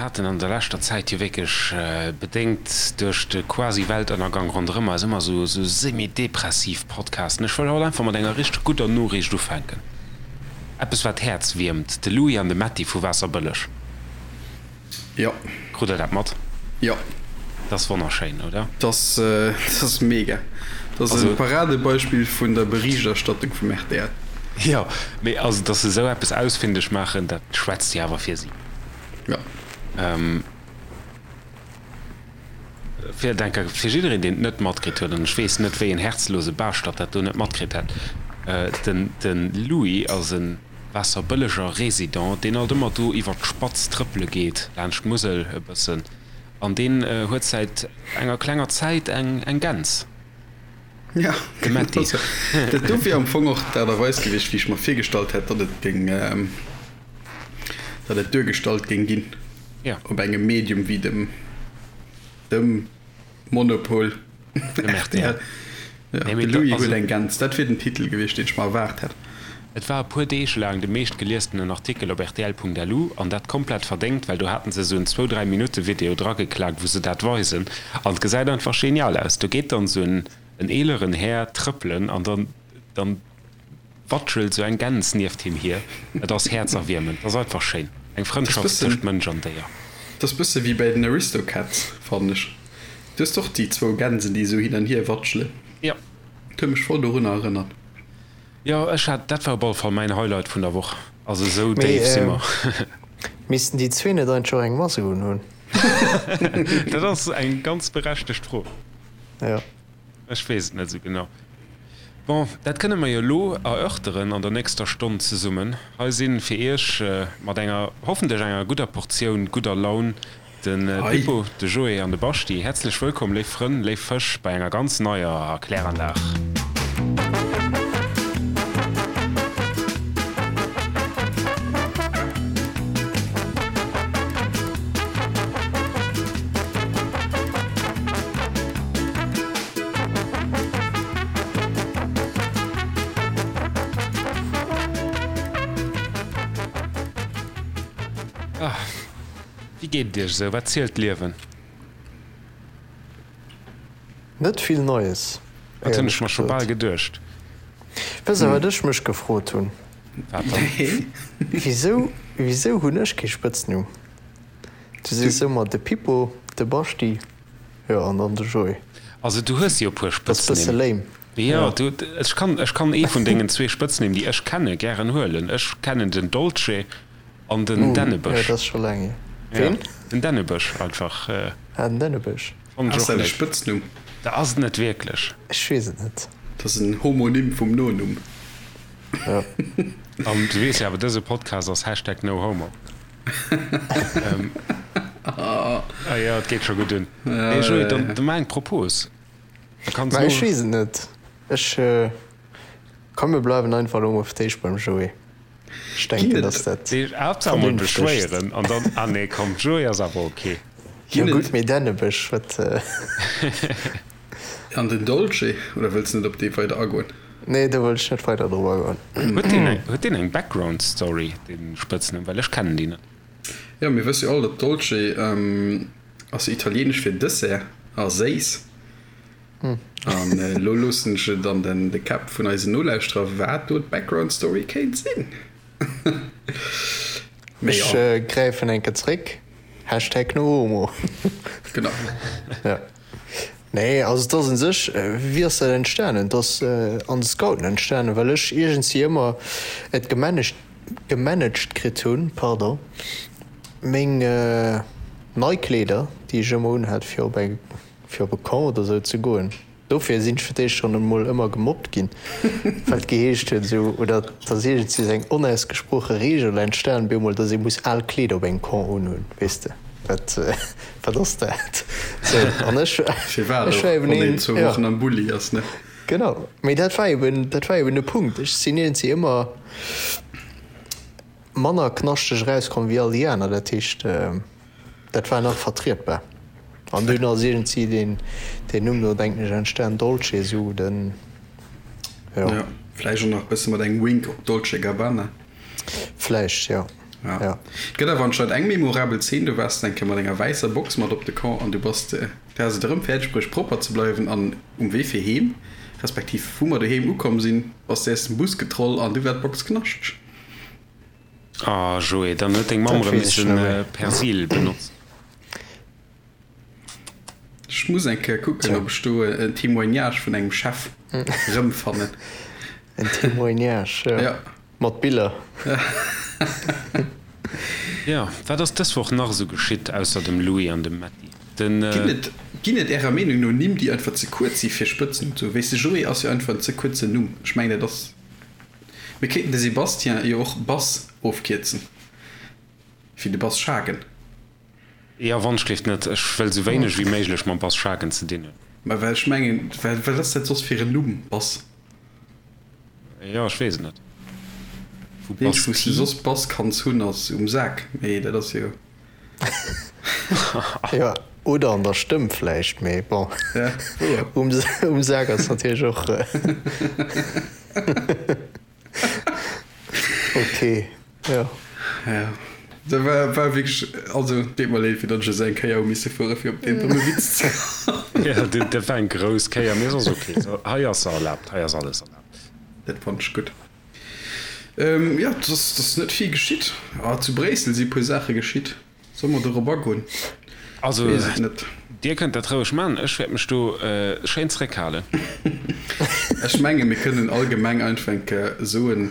Mir haten an der leschter Zäit jo wierklech, bedéngt duerch de Quasi-Weltënnergang ronderëm eis, ëmmer esou semi-depressiv Podcasten. Ech wëll haut einfach mat enger richteg gudder Noriicht ufänken. Eppes wat d'Häerz wiermt, de Louis an de Metty vu Waasserbëlleg. Jo. Krut der dat mat? Jo. Dat ass wonnerschéin, oder? Dat ass mega. Dat ass e Paradebeispill vun der Berichterstattung vum rtl. Jo, mee also dass se esou eppes ausfindeg maachen, dat schwätzt jo awer fir si. Jo. Fir denke fir jiddereen, deen et net matkritt huet, an ech weess net, wéi en herzlose Baaschtert dat do net matkritt hätt, den de Louis ass e Waasserbëlleger Résident, deen alt ëmmer do iwwer d'Spatz trëppele geet, laanscht d'Musel e bëssen, an deen huet säit enger klenger Zäit eng eng Gäns. Ja, De Metty. Dat do wier am Fong och d'Aart a Weis gewiescht, wéi ech mer virgestallt hätt, datt et géing. Datt et duergestallt géing ginn op engem Medium wéi dem dem Monopol rtl. De Louis huet eng Gäns, dat wier den Titel gewiescht, deen ech mer erwaart hätt. Et war e puer Deeg laang de meeschtgeliestenen Artikel op rtl.lu, an dat komplett verdéngt, well do haten se esou en zwou, dräi Minutte Video drageklaakt, wou se dat weisen, an et gesäit einfach genial aus. Do geet dann esou en eeleren Här trëppelen an dann dann Watschelt sou eng Gäns nieft him hier. Et ass häerzerwiermend. Et ass einfach schéin. Eng Frëndschaft tëscht Mënsch an Déier. Dat ass bësse wéi bäi den Aristocats, fannen ech. Du hues och déi zwou Gänsen, déi esou hin an hier watschelen. Jo. Dat huet mech voll dorunner erënnert. Jo, ech hat, dat war op alle Fall mäin Highlight vun der Woch. Also esou déif si mer. Missten déi zwee net eigentlech och eng Mask unhunn? Dat ass eng ganz berechtegt Fro. Jo. Ech weess et net esou genau. Bon, dat kënne mer jo elo erörteren an der nächster Stonn zesummen. Hei si fir Iech mat enger, hoffentlech enger gudder Portioun gudder Laun de Pippo, de Joé an de Baschti. Häerzlech wëllkomm, léif Frënn, léif Fësch, bei enger ganz neier Kläranlag. Wéi geet et iech esou? Wat zielt d'Liewen? Net vill Neies, Dat hunn ech mer scho bal geduecht. Wësst der, wat ech mech gefrot hunn? Wat dann? Wisou, wisou hunn ech kee Spëtznumm? Du sees ëmmer de Pippo, de Baschti. Jo, an dann de Joé. Also du hues jo e puer Dat ass bësse Spëtznimm. lame. Jo, du, ech kann, ech kann ee vun dengen zwee Spëtznimm, déi ech kenne, gären huelen. Ech kennen den Dolce an den Jo, Dännebësch. dat ass scho laang hier. Ja, Ween? den Dännebësch einfach. Ah, den Dännebësch. Fannen ech Ass och dat e léif. Spëtznumm? Dat ass et net wierklech. Ech weess et net. Dat ass en Homonym vum Nonumm. Jo. An du weess jo awer, dëse Podcast ass Hashtag NoHomo. Ah jo, et geet scho gutt un. Hey Joé, dann maach eng Propos. Da kanns Mä ech weess et net. Ech, komm mir bleiwen einfach elo mol fir d'éischt beim Joé. Ech denken, dass dat Haaptsaach mol beschwéieren an dann, ah nee, komm, Joé ass awer ok. Jo gutt, mee Dännebësch, wat? An den Dolce, oder wëlls de net op dee weider agoen? Nee, do wëll ech net weider drop agoen. Huet deen eng, huet deen eng Background Story, dee Spëtznumm? Well ech kennen déi net. Jo, mir wësse jo all, datt Dolce ass jo italieenesch fir Dessert a séiss. An elo loossen ech et an den de Käpp vun eisen Nolauschterer, wat do d'Background Story kéint sinn. Mee jo. Ech gräifen eng Kéier zréck, Hashtag NoHomo. Genau. Ja. Nee, also et ass un sech, wéi ass dat entstanen? Et ass an de Scouten entstanen, well ech iergendwéi ëmmer et gemanagt, gemanagt kritt hunn, pardon, meng nei Kleeder, déi ech ëmmer unhat fir op eng, fir op e Camp oder sou ze goen. Dofir sinn ech fir d'éischt schonn emol ëmmer gemobbt ginn, well et geheescht huet esou, oder et ass iergendwéi esou eng onausgesproche Reegel entstan bemol, datt ee muss al Kleeder op engem Camp unhunn, weess de. Wat, wat ass dat? Sou, an ech, Firwat ech och, war eben wann een een, zwou ja. Wochen am Bulli ass, ne? Genau, mee dat war eben, dat war eben de Punkt. Ech sinn iergendwéi ëmmer manner knaschteg erauskomm wéi all déi aner. Dat heescht, dat war nach vertrietbar. An dunn ass iergendwéi deen, deen Numm do, denken ech, entstan, Dolce, sou den, jo. Ja, vläicht och nach e bësse mat engem Wink op Dolce Gabbana. Vläicht, jo. Ja. Ja. Et gëtt awer anscheinend eng memorabel Zeen, do waars de eng Kéier mat enger wäisser Box mat op de Camp an du bass, du has et erëm fäerdeg bruecht propper ze bleiwen an um Wee fir heem, respektiv wou mer doheem ukomm sinn, bass de aus dem Bus getroll an du war d'Box knaschteg. Ah Joé, dann huet deng Mamm Dat erëm weess ech missen net méi. Persil benotzen. Ech muss eng Kéier kucken, ob ech do en Témoignage vun engem Chef rëmfannen. En Témoignage, jo. Ja. Mat Biller. Jo, wat ass dës Woch nach esou geschitt, ausser dem Louis an dem Metty? Den. Ginn et, ginn et Ärer Meenung no Nimm, déi einfach ze kuerz si fir Spëtznumm ze hunn? Wéisst de, Joé ass jo einfach en ze kuerzen Numm. Ech mengen, dat ass, mir kéinten de Sébastien jo och Bass ofkierzen, wéi de Bass Schagen. Jo, wonschgelift net. Ech wëll sou wéineg wéi méiglech mam Bass Schagen ze dinn hunn. Mä well ech mengen, well wat ass dat soss fir en Numm, Bass? Jo, ech weess et net. Vu Bass Wou s de soss Bass kanns hunn, ass um Sak, mee dat ass jo. Jo, oder an der Stëmm vläicht, mee bon, Ja, wouer. um Sak ass natierlech och. Ok, jo. Ja, dat war, war wierklech, also deet mer leed, fir datt ech esou eng Kéier hu misse fuere fir op deen domme Witz ze kommen. Ja, dat, dat war eng grouss Kéier, mee ass ok. So, hei ass se erlaabt, hei ass alles erlaabt. Dat fannt ech gutt. Ähm, jo, et ass, et ass net vill geschitt. Ah, zu Bréissel si puer Saache geschitt. Solle mer dorop agoen? Also, Dir kënnt dat roueg man, ech wäert mech do schéin zréckhalen. Ech menge mir kënnen allgemeng einfach eng Kéier soen,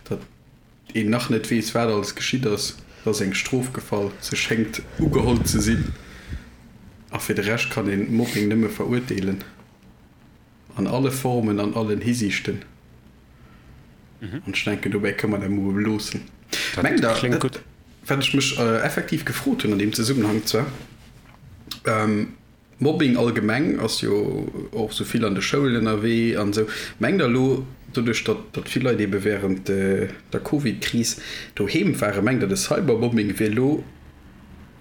datt een nach net weess, wat alles geschitt ass. Et ass eng Strof gefall, se schéngt ugeholl ze sinn. A fir de Rescht kann een Mobbing nëmme verurteelen. An alle Formen, an allen Hisiichten. An ech denken, dobäi kënne mer dat emol beloossen. Dat Mengt Der, kléngt gutt. wat ech mech effektiv gefrot hunn an deem Zesummenhang zwar, Mobbing allgemeng ass jo och esou vill an de Schoulen ënnerwee an esou, mengt Der elo, doduerch datt datt vill Leit eebe während der Covid-Kris doheem waren, mengt Der, de Cybermobbing wier elo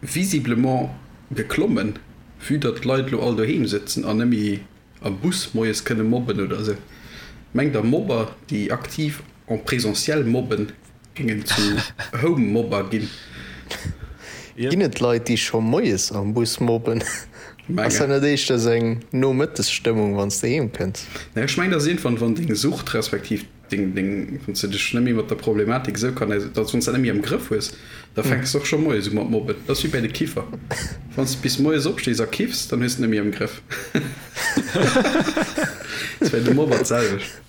visiblement geklommen, vue datt d'Leit elo all doheem sëtzen an net méi am Bus moies kënne mobben oder esou. Mengt der Mobber déi aktiv en présentiel mobben géingen zu Home-Mobber ginn? Ginn et Leit déi scho moies am Bus mobben? Ass dat net éischter esou eng Nomëttesstëmmung wann s de heem kënns? Nee ech mengen dat ass iergendwann wann deng Sucht respektiv deng, deng, wann s de dech net méi mat der Problematik esou kann, dass wann s dat net méi am Grëff hues, da fänks de och scho moies u mat mobben. Dat ass wéi bäi de Kiffer, wann s de bis moies opstees a kiffs, dann hues de et net méi am Grëff. Dat ass bäi de Mobber d'selwecht.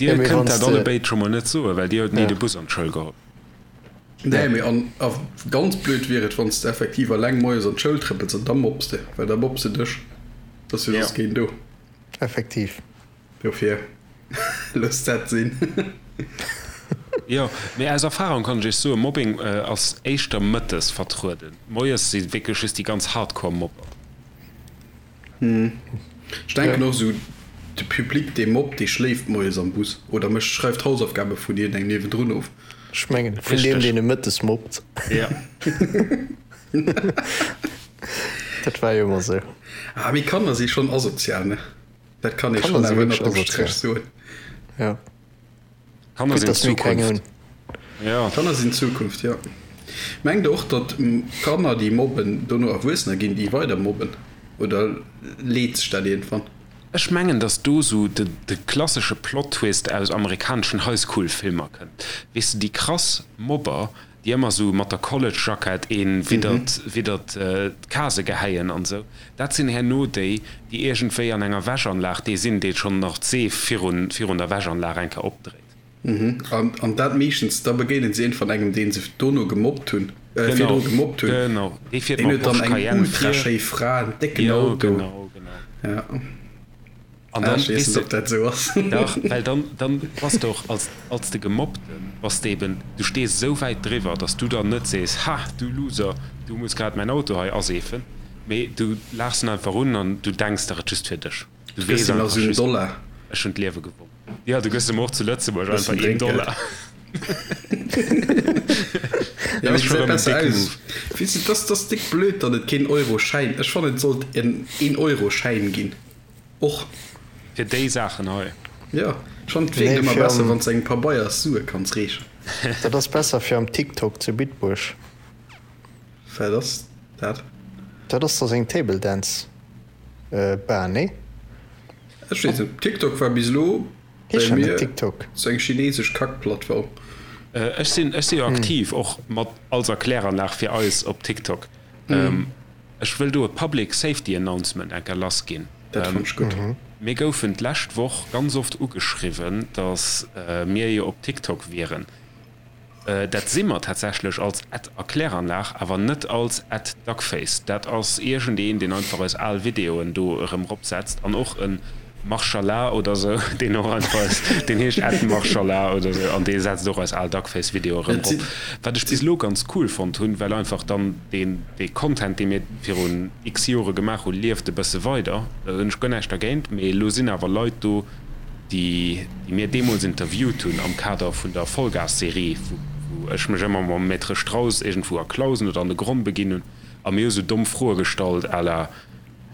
Dir kënnt dat allebéid scho mol net soen, well dir huet ni de Bus an d'Schoul geholl. Nee, mee an a ganz blöd wier et, wann s de effektiv alleng moies an d'Schoul trëppels an da mobbs de, well da mobbs de dech, et ass jo soss keen do. Effektiv. Dofir, loosst dat sinn. Jo, mee aus Erfahrung kann ech iech soen, Mobbing ass éischter mëttes vertrueden. Moies si wierklech just déi ganz Hardcore Mobber. Ech denken och esou, de Public dee mobbt, dee schléift moies am Bus oder mécht, schreift d'Hausaufgabe vun iergendengem niewendrun of. Ech mengen vun deem deen e mëttes mobbt. Jo. Dat war jo ëmmer esou. Ah, mee Kanner si schonn asozial, ne? Dat kann ee schonn awer ënnert dem Stréch soen. Ja. Kanner sinn d'Zukunft. Ja. Kanner sinn d'Zukunft, jo. Mengt der och, datt Kanner, déi mobben, dono Erwuessener ginn, déi weider mobben? Oder leet sech dat iergendwann? Ech mengen, datt do sou de klassesche Plot-Twist aus amerikaneschen High-School-Filmer kënnt. Weess de, déi krass Mobber, déi ëmmer sou mat der College-Jackett een widdert widdert d'Casë gehäien an sou, dat sinn herno déi, déi iergendwéi an enger Wäschanlag dee sinn, dee schonn nach d'Seef virun virun der Wäschanlag eng Kéier opdréit. Mhm. An an dat meeschtens, da begéinen se iergendwann engem, dee se dono gemobbt hunn, äh, virdru gemobbt hunn. Genau, dee fiert Deen mam huet dann Porsche eng Cayenne ultra vir. schéi Fra, en décken Jo, Auto. genau, genau. Ja. An Ah, dann, ech weess weess net, de, ob dat esou ass. dach, well dann, dann bass de och als, als de Gemobbten, bass de eben, du stees esou wäit driwwer, dass du dann net sees, Ha, du Loser, du muss grad mäin Auto hei aseefen, mee du laachs en einfach un an du denks der et just fir dech. Du Du gëss weess him nach einfach esou en just, Dollar. ech hunn d'Liewe gewonnen. Jo, du gëss em och zu Lëtzebuerg Bëssen einfach een Drénkgeld. Dollar. Ja, Dat mee ass scho gesäit rëm en besser décke aus. Move. Weess de, dass dass déck blöd, datt et keen Euro-Schäin, ech fannen et sollt en een Euro-Schäin ginn. Och. Fir déi Saachen hei. Jo, ech fannen et wierkt ëmmer besser wann s de engem Pabeiers Sue kanns reechen. Dat ass besser fir am TikTok zu Bitburg. Wat ass dat? Dat ass da seng Table Dance Bar, nee? Ech weess net, TikTok war bis elo bei mir sou eng chinesesch Kackplattform. Ech sinn ech si jo aktiv och mat als Erkläranlag fir eis op TikTok. Ech wëll do e Public Safety Announcement enker lass ginn. Dat fannt ech gutt. Mir goufen d'lescht Woch ganz oft ugeschriwwen, datt mir jo op TikTok wieren. Dat si mer tatsächlech als at Erkläranlag, awer net als at Duckface. Dat ass iergendeen, deen einfach eis al Videoen do erëm ropsetzt an och e Marshalla oder sou, deen och einfach eis, deen heescht at Marshalla oder sou an dee setzt och eis al Duckface-Videoe erëm rop. Wat ech bis elo ganz cool fonnt hunn, well einfach dann deen, dee Content, dee mir virun x Jore gemaach hunn, lieft e bësse weider. Do hunn ech guer näischt dergéint, mee elo sinn awer Leit do, déi mir deemools interviewt hunn am Kader vun der Vollgas-Serie, wou ech mech ëmmer mam Maître Strauss iergendwou a Clausen oder an de Gronn beginn hunn a mir hu sou domm Froe gestallt à la,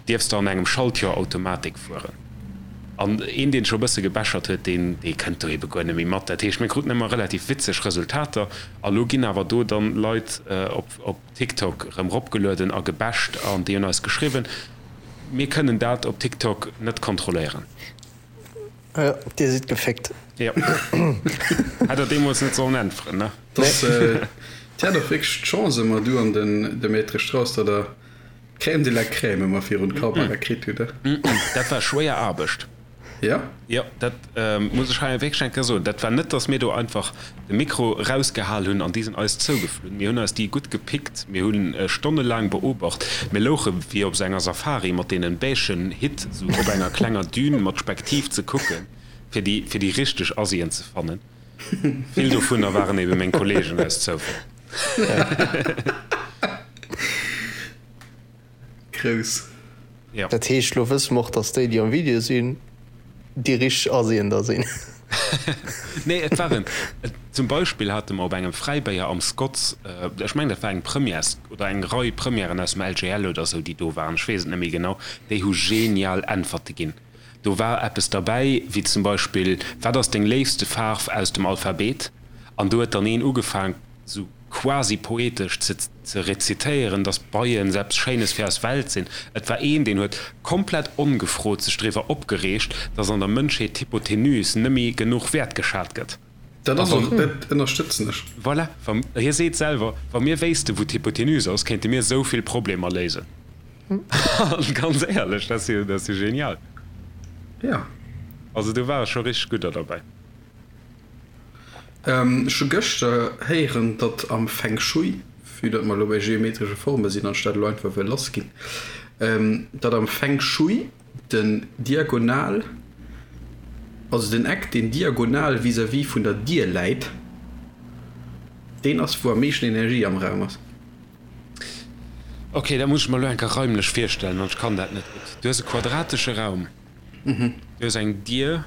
Dierfs de an engem Schaltjoer Automatik fueren? An een, deen scho e bësse gebechert huet, deen, dee kënnt do ebe guer net méi mat. Dat heescht, mir kruten ëmmer relativ witzeg Resultater a lo ginn awer do dann Leit op, op TikTok erëm ropgelueden a gebasht an déi hunn eis geschriwwen, Mir kënnen dat op TikTok net kontrolléieren. Jo, dir sidd geféckt. Jo. Hätt der deemools net sollen äntweren, ne? Dass, Dir hat och wierklech d'Chance ëmmer, du an den de Maître Strauss, datt der d'Crème de la Crème ëmmer virun d'Kamera kritt hutt, he? Dat war schwéier Aarbecht. Jo? Jo, dat muss ech hei wierklech eng Kéier soen. Dat war net, datt mir do einfach de Mikro erausgehal hunn an déi sinn eis zougeflunn. Mir hunn eis déi gutt gepickt, mir hunn stonnelaang beobacht. Mir louche wéi op esou enger Safari mat deenen beigen Hitt esou op enger klenger Dune mat Spektiv ze kucken, fir déi, fir déi richteg Asien ze fannen. Vill dovunner waren ebe meng Kollegen aus Zoufall. Grouss. Ja. Dat heescht, lo wësse mer och, dass déi, déi am Video sinn, déi richteg Asien da sinn. Nee, et waren, zum Beispill hate mer op engem Fräibéier am Scotts, ech mengen, dat war eng Première oder eng Rei Premièren aus dem LGL oder esou, déi do waren, ech weess et net méi genau, déi hu genial Äntwerte ginn. Do war eppes derbäi, wéi zum Beispill, Wat ass deng léifste Faarf aus dem Alphabet? An do huet dann een ugefaang, sou quasi poetesch ze ze rezitéieren, dass Beien sou eppes Schéines fir eis Welt sinn. Et war een, deen huet komplett ongefrot sech driwwer opgereegt, dass an der Mënschheet d'Hypotenuse nëmmi genuch wäertgeschat gëtt. Dat ass och, dat ënnerstëtzen ech. Voilà, wa, hie seet selwer, wa mir wéisste wou d'Hypotenuse ass, kéinte mir esou vill Problemer léisen. An ganz éierlech, dat ass jo, dat ass jo genial. Jo. Also do ware scho richteg gudder derbäi. Ech hu gëschter héieren, datt am Feng Shui, vue datt mer elo bei geometresche Forme sinn an ech dat elo einfach wëll lassginn, datt am Feng Shui den Diagonal, also den Eck deen diagonal vis-à-vis vun der Dier läit, deen ass wou am meeschten Energie am Raum ass. Ok, dat muss ech mer elo eng Kéier raimlech virstellen, an ech kann dat net gutt. Du hues e quadratesche Raum. Du hues eng Dier,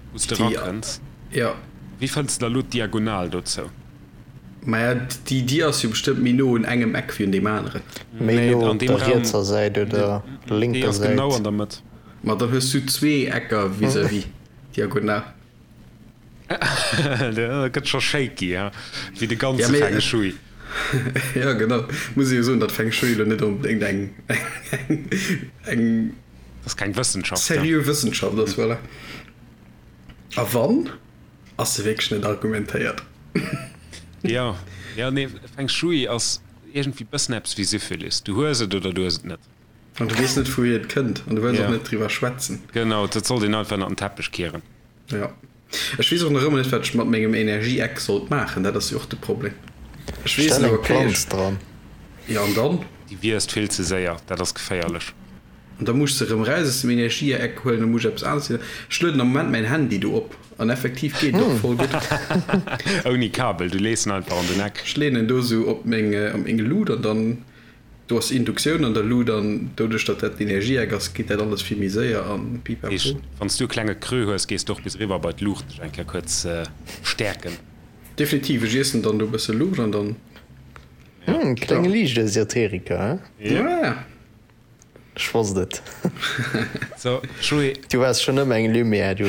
wou s de erakënns. Jo. Wéi fënns de da elo d'Diagonal dozou? Maja, déi Dier ass jo bestëmmt méi no un engem Eck wéi un deem aneren. Méi no op der rietser Säit oder lénker Säit? Déi ass genau an der Mëtt. Ma dann hues du zwee Ecker vis-à-vis, diagonal. Dat gëtt scho shaky, he? Wéi de ganze Feng Shui. Jo, genau. Muss ee jo soen, datt Feng Shui elo net onbedéngt eng, eng. Dat ass keng Wëssenschaft. Seriö Wëssenschaft ass, voilà. A wann, ass se wierklech net argumentéiert. Jo, jo, nee, Feng Shui ass iergendwéi bëssen eppes wéi Syphilis. Du hues et oder du hues et net. An du weess net, wouhier et kënnt an du wëlls och net driwwer schwätzen. Genau, dat sollt een einfach ënnert den Teppech kieren. Jo. Ech weess och nach ëmmer net, wat ech mat mengem Energieeck sollt maachen. Dat ass jo och de Problem. Ech weess Stell elo, eng okay, Planz ech. dran. Jo, an dann? Déi wiisst vill ze séier, dat ass geféierlech. An da muss ech se erëm raus aus dem Energieeck huelen, da muss ech eppes aneres huelen. Ech lueden am Moment mäin Handy do op an effektiv geet et och voll gutt. Ouni Kabel, du lees en einfach an den Eck. Ech leeën en do esou op meng, op meng Lut an dann, do ass Induktioun an der Lut an doduerch datt dat den Energieeck ass, geet dat alles vill méi séier an pipapo. Heescht, wann s du e klenge Creux hues, gees de och bis eriwwer bei d'Luucht dech eng Kéier kuerz stäerken. Definitiv, ech iessen dann do e bësse Luucht an dann. Hm, klenge Liichtesoteriker, he? Ja. Ech wosst et. So, Joé. Du waars schonn ëmmer eng Lumière, du.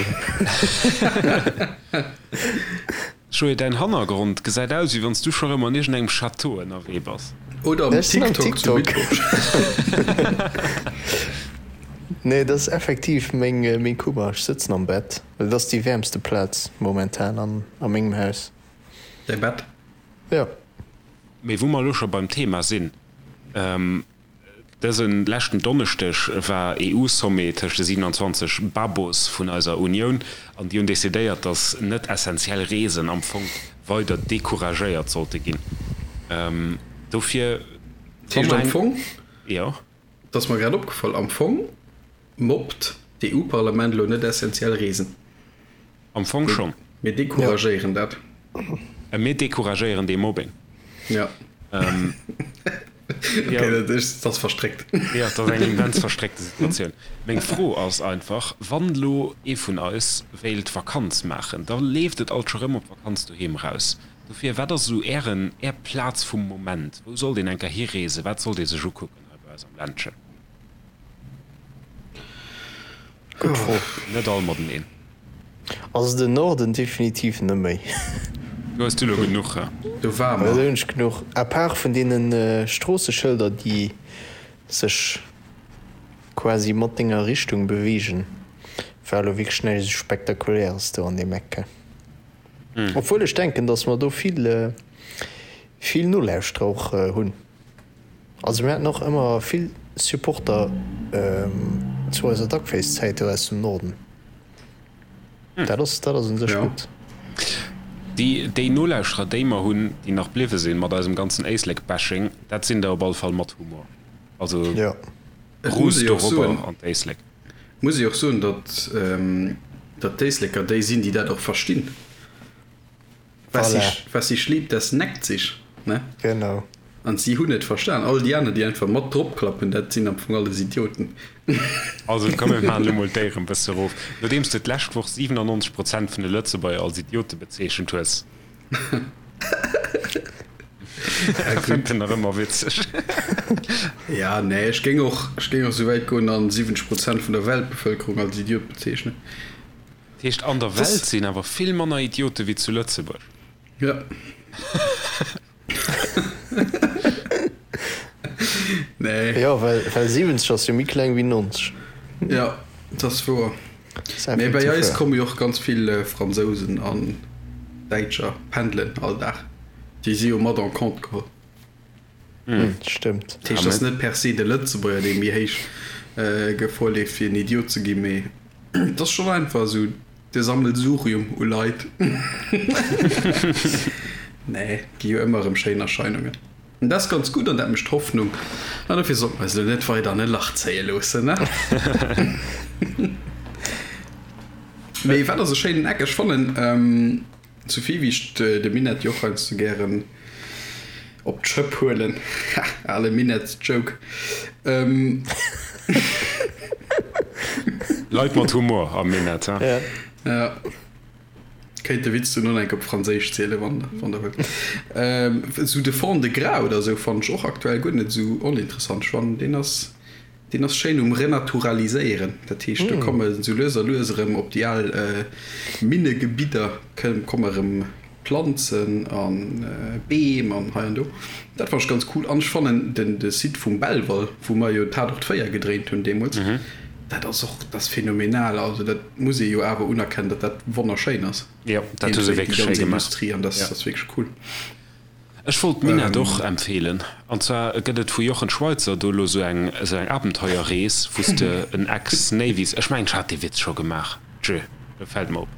Joé, däin Hannergrond gesäit aus, wéi wann s du scho rëm an iergendengem Château ënnerwee bass. Oder am Ech sinn am TikTok zu TikTok. Bitburg. Nee, dat ass effektiv meng, meng Kummer. Ech sëtzen am Bett, well dat ass déi wäermste Plaz momentan an, a mengem Haus. Däi Bett? Jo. Mee wou mer elo scho beim Thema sinn, Dëse leschten Donneschdeg war EU-Sommet tëscht de 27 Babos vun eiser Unioun an déi hunn decidéiert, datt net essentiell Reesen am Fong weider decouragéiert sollte ginn. Dofir, Dat heescht am Fong, jo. et ass mer grad opgefall, am Fong mobbt d'EU-Parlament elo net essentiell Reesen. Am Fong schonn. Mir decouragéieren dat. Mir decouragéieren dee Mobbing. Ja. Okay, dat ass verstréckt. Jo, dat ass eng immens verstréckte Situatioun. Meng Fro ass einfach, Wann elo ee vun eis wéilt Vakanz maachen, da leeft et alt scho rëm op Vakanz doheem eraus. Dofir, wat ass esou Ären, Är Plaz vum Moment? Wou sollt een eng Kéier hireesen? Wat sollt ee sech ukucken hei bei eis am Ländchen? Gutt Fro. Net all mateneen. Also den Norden definitiv net méi. Do hues du lo genuch, he? Do war mer. Do hunn ech genuch. À part vun deene Stroosseschëlder, déi sech quasi mat denger Richtung beweegen, war elo wierklech näischt esou Spektakuläres do an deem Eck. Obwuel ech denken, datt mer do vill, vill Nolauschterer och hunn. Also mir haten och ëmmer vill Supporter zu eiser Duckface-Zäit do aus dem Norden. Dat ass, dat ass un sech gutt. Déi, déi Nolauschterer, déi mer hunn, déi nach bliwwe sinn mat eisem ganzen Éislek-Bashing, dat sinn der op alle Fall mat Humor. Also Jo. Et muss ruust ee jo och dorobber soen, an d'Éislek. muss ee jo och soen, datt, datt d'Éisleker déi sinn, déi dat och verstinn. Was Voilà. sich, was sich liebt, das neckt sich, ne? Genau. An si hunn et verstan. All déi aner, déi einfach mat drop klappen, dat sinn am Fong alles Idioten. Also komm mir maachen elo mol d'Éier en bësse erof. Nodeems de d'lescht Woch 97 Prozent vun de Lëtzebuerger als Idiote bezeechent hues. Ja, Fënnt en nach ëmmer witzeg. Ja, nee, ech géing och, ech géing och esou wäit goen an 70 Prozent vun der Weltbevëlkerung als Idiot bezeechnen. Dat heescht, an der Welt sinn awer vill manner Idiote wéi zu Lëtzebuerg. Ja. Nee. Jo, well, well 70 ass jo méi kleng wéi 90. Ja, dat ass wouer. Mee bei eis komme jo och ganz vill Fransousen an Däitscher pendelen all Dag. Déi si jo mat en compte geholl. Stëmmt. Dat heescht, et ass net per se de Lëtzebuerger, dee méi héich Gefor leeft, fir en Idiot ze ginn, mee et ass schonn einfach esou de Sammelsurium u Leit. Nee, et gi jo ëmmer erëm schéin Erscheinungen. An dat ass ganz gutt an dat mécht Hoffnung. An dofir sollte mer eis elo net weider an e Lach zéie loossen, ne? Mee wat ass e schéinen Eck? Ech fannen, Souvill wéi ech de Minett jo och heiansdo gären op d'Schëpp huelen, ha, ale Minetts-Joke. Leit mat Humor am Minett, ha? Ja. Kéint de Witz dunn och enk op Franséisch zielen, wann der wëllt. Esou de Fond-de-Gras oder esou fannen ech och aktuell guer net esou oninteressant. Ech fannen, deen ass. Deen ass schéin um Renaturaliséieren, dat heescht do komme sou lues a lues erëm op déi al Minnegebidder komme erëm Planzen a Beem an hei an do. Dat fannen ech ganz cool an ech fannen den de Site vum Belval, wou mer jo Tatort 4 gedréint hunn deemools, dat ass och, dat ass phänomenal. Also dat muss ee jo awer unerkennen, datt dat wonnerschéin ass. Jo, dat hu se Déi wierklech schéi ganz gemaach. Industrie an dat ass wierklech cool. Ech wollt d'Minett och empfehlen. An zwar gëtt et vu Jochen Schweizer do elo sou eng sou eng Abenteuerrees, wou s de en Ex-Navies, ech mengen ech hat dee Witz scho gemaach, tjö, lo fällt mer op,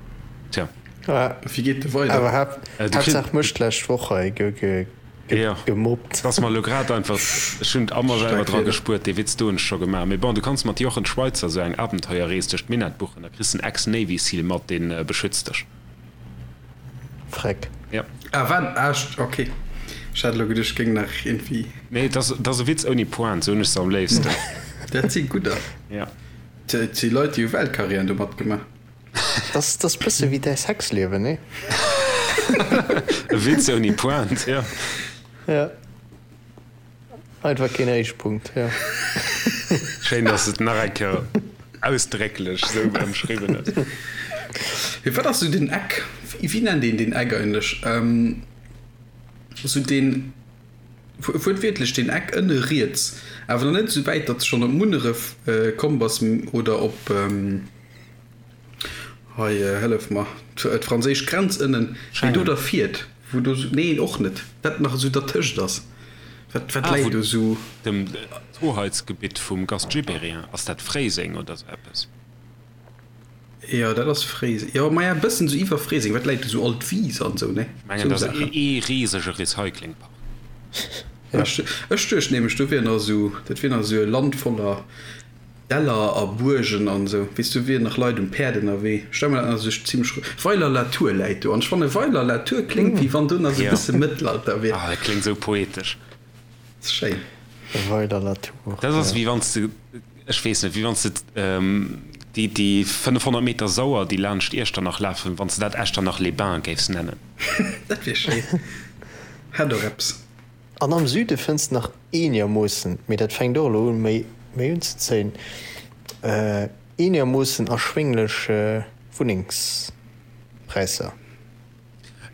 tja. Wéi geet de weider? Awer Haaptsaach mech d'lescht Woch hei gemobbt. Et ass mer elo grad einfach, ech hunn a mer selwer dra gespuert, dee Witz do hunn ech scho gemaach. Mee bon, du kanns mat Jochen Schweizer sou eng Abenteuerrees duerch d'Minett buchen, da kriss de en Ex-Navy Seal mat, dee beschützt dech. Freck. Ja. Ah, wat? Ah, ok. Ech hat elo geduecht, ech géing nach iergendwéi. Nee, et ass, et ass e Witz ouni Pointe, sou hunn ech se am léifsten. Dat si gudder. Ja. Et si Leit, déi hu Weltkarriären domat gemaach. Dat ass bësse wéi däi Sexliewen, nee? E Witz ouni Pointe, ja. Ja. Einfach keen Héichpunkt, jo. Schéin, dass de et nach eng Kéier ausdrécklech esou ëmschriwwen hues. Mee wat ass esou den Eck, wéi nennt een deen Eck eigentlech? Esou deen, wuertwiertlech deen Eck ënne riets, awer nach net esou wäit, datt s de schonn op Munneref komm bass oder op, hei hëllef mer, d'franséisch Grenz ënnen, mee do derfiert. Wou do sou, neen och net, dat nach esou dertëscht ass, wat wat läit do sou? Dem d'Hoheitsgebitt vum Gast Gibéryen, ass dat Fréiseng oder sou eppes? Jo dat ass Fréiseng, jo maja e bëssen sou iwwer Fréiseng, wat läit do sou alt Wies an sou, ne? Ech mengen dat ass ee risege Recyclingpark. Ech duecht nämlech do wier nach esou, dat wier nach esou e Land voller Däller a Buergen an esou, weess du, wieren nach Leit um Päerd ënnerwee. Ech stelle mer dat nach esou zimlech Weiler-la-Tour läit do an ech fanne Weiler-la-Tour kléngt wéi wann do nach esou e bësse Mëttelalter wier. Ah, dat kléngt esou poetesch. Ass schéin. Weiler-la-Tour, Dat ass wéi wann s de, ech weess net, wéi wann s de déi, déi 500 Meter Sauer, déi laanscht Iechternach lafen, wann s de dat Echternach-les-Bains géifs nennen. Dat wier schéin. Hätt och eppes. An am Süde fënns de nach eenermoossen, mee dat fänkt och elo un méi méi unzezéien, eenermoossen erschwénglech Wunnengspräisser.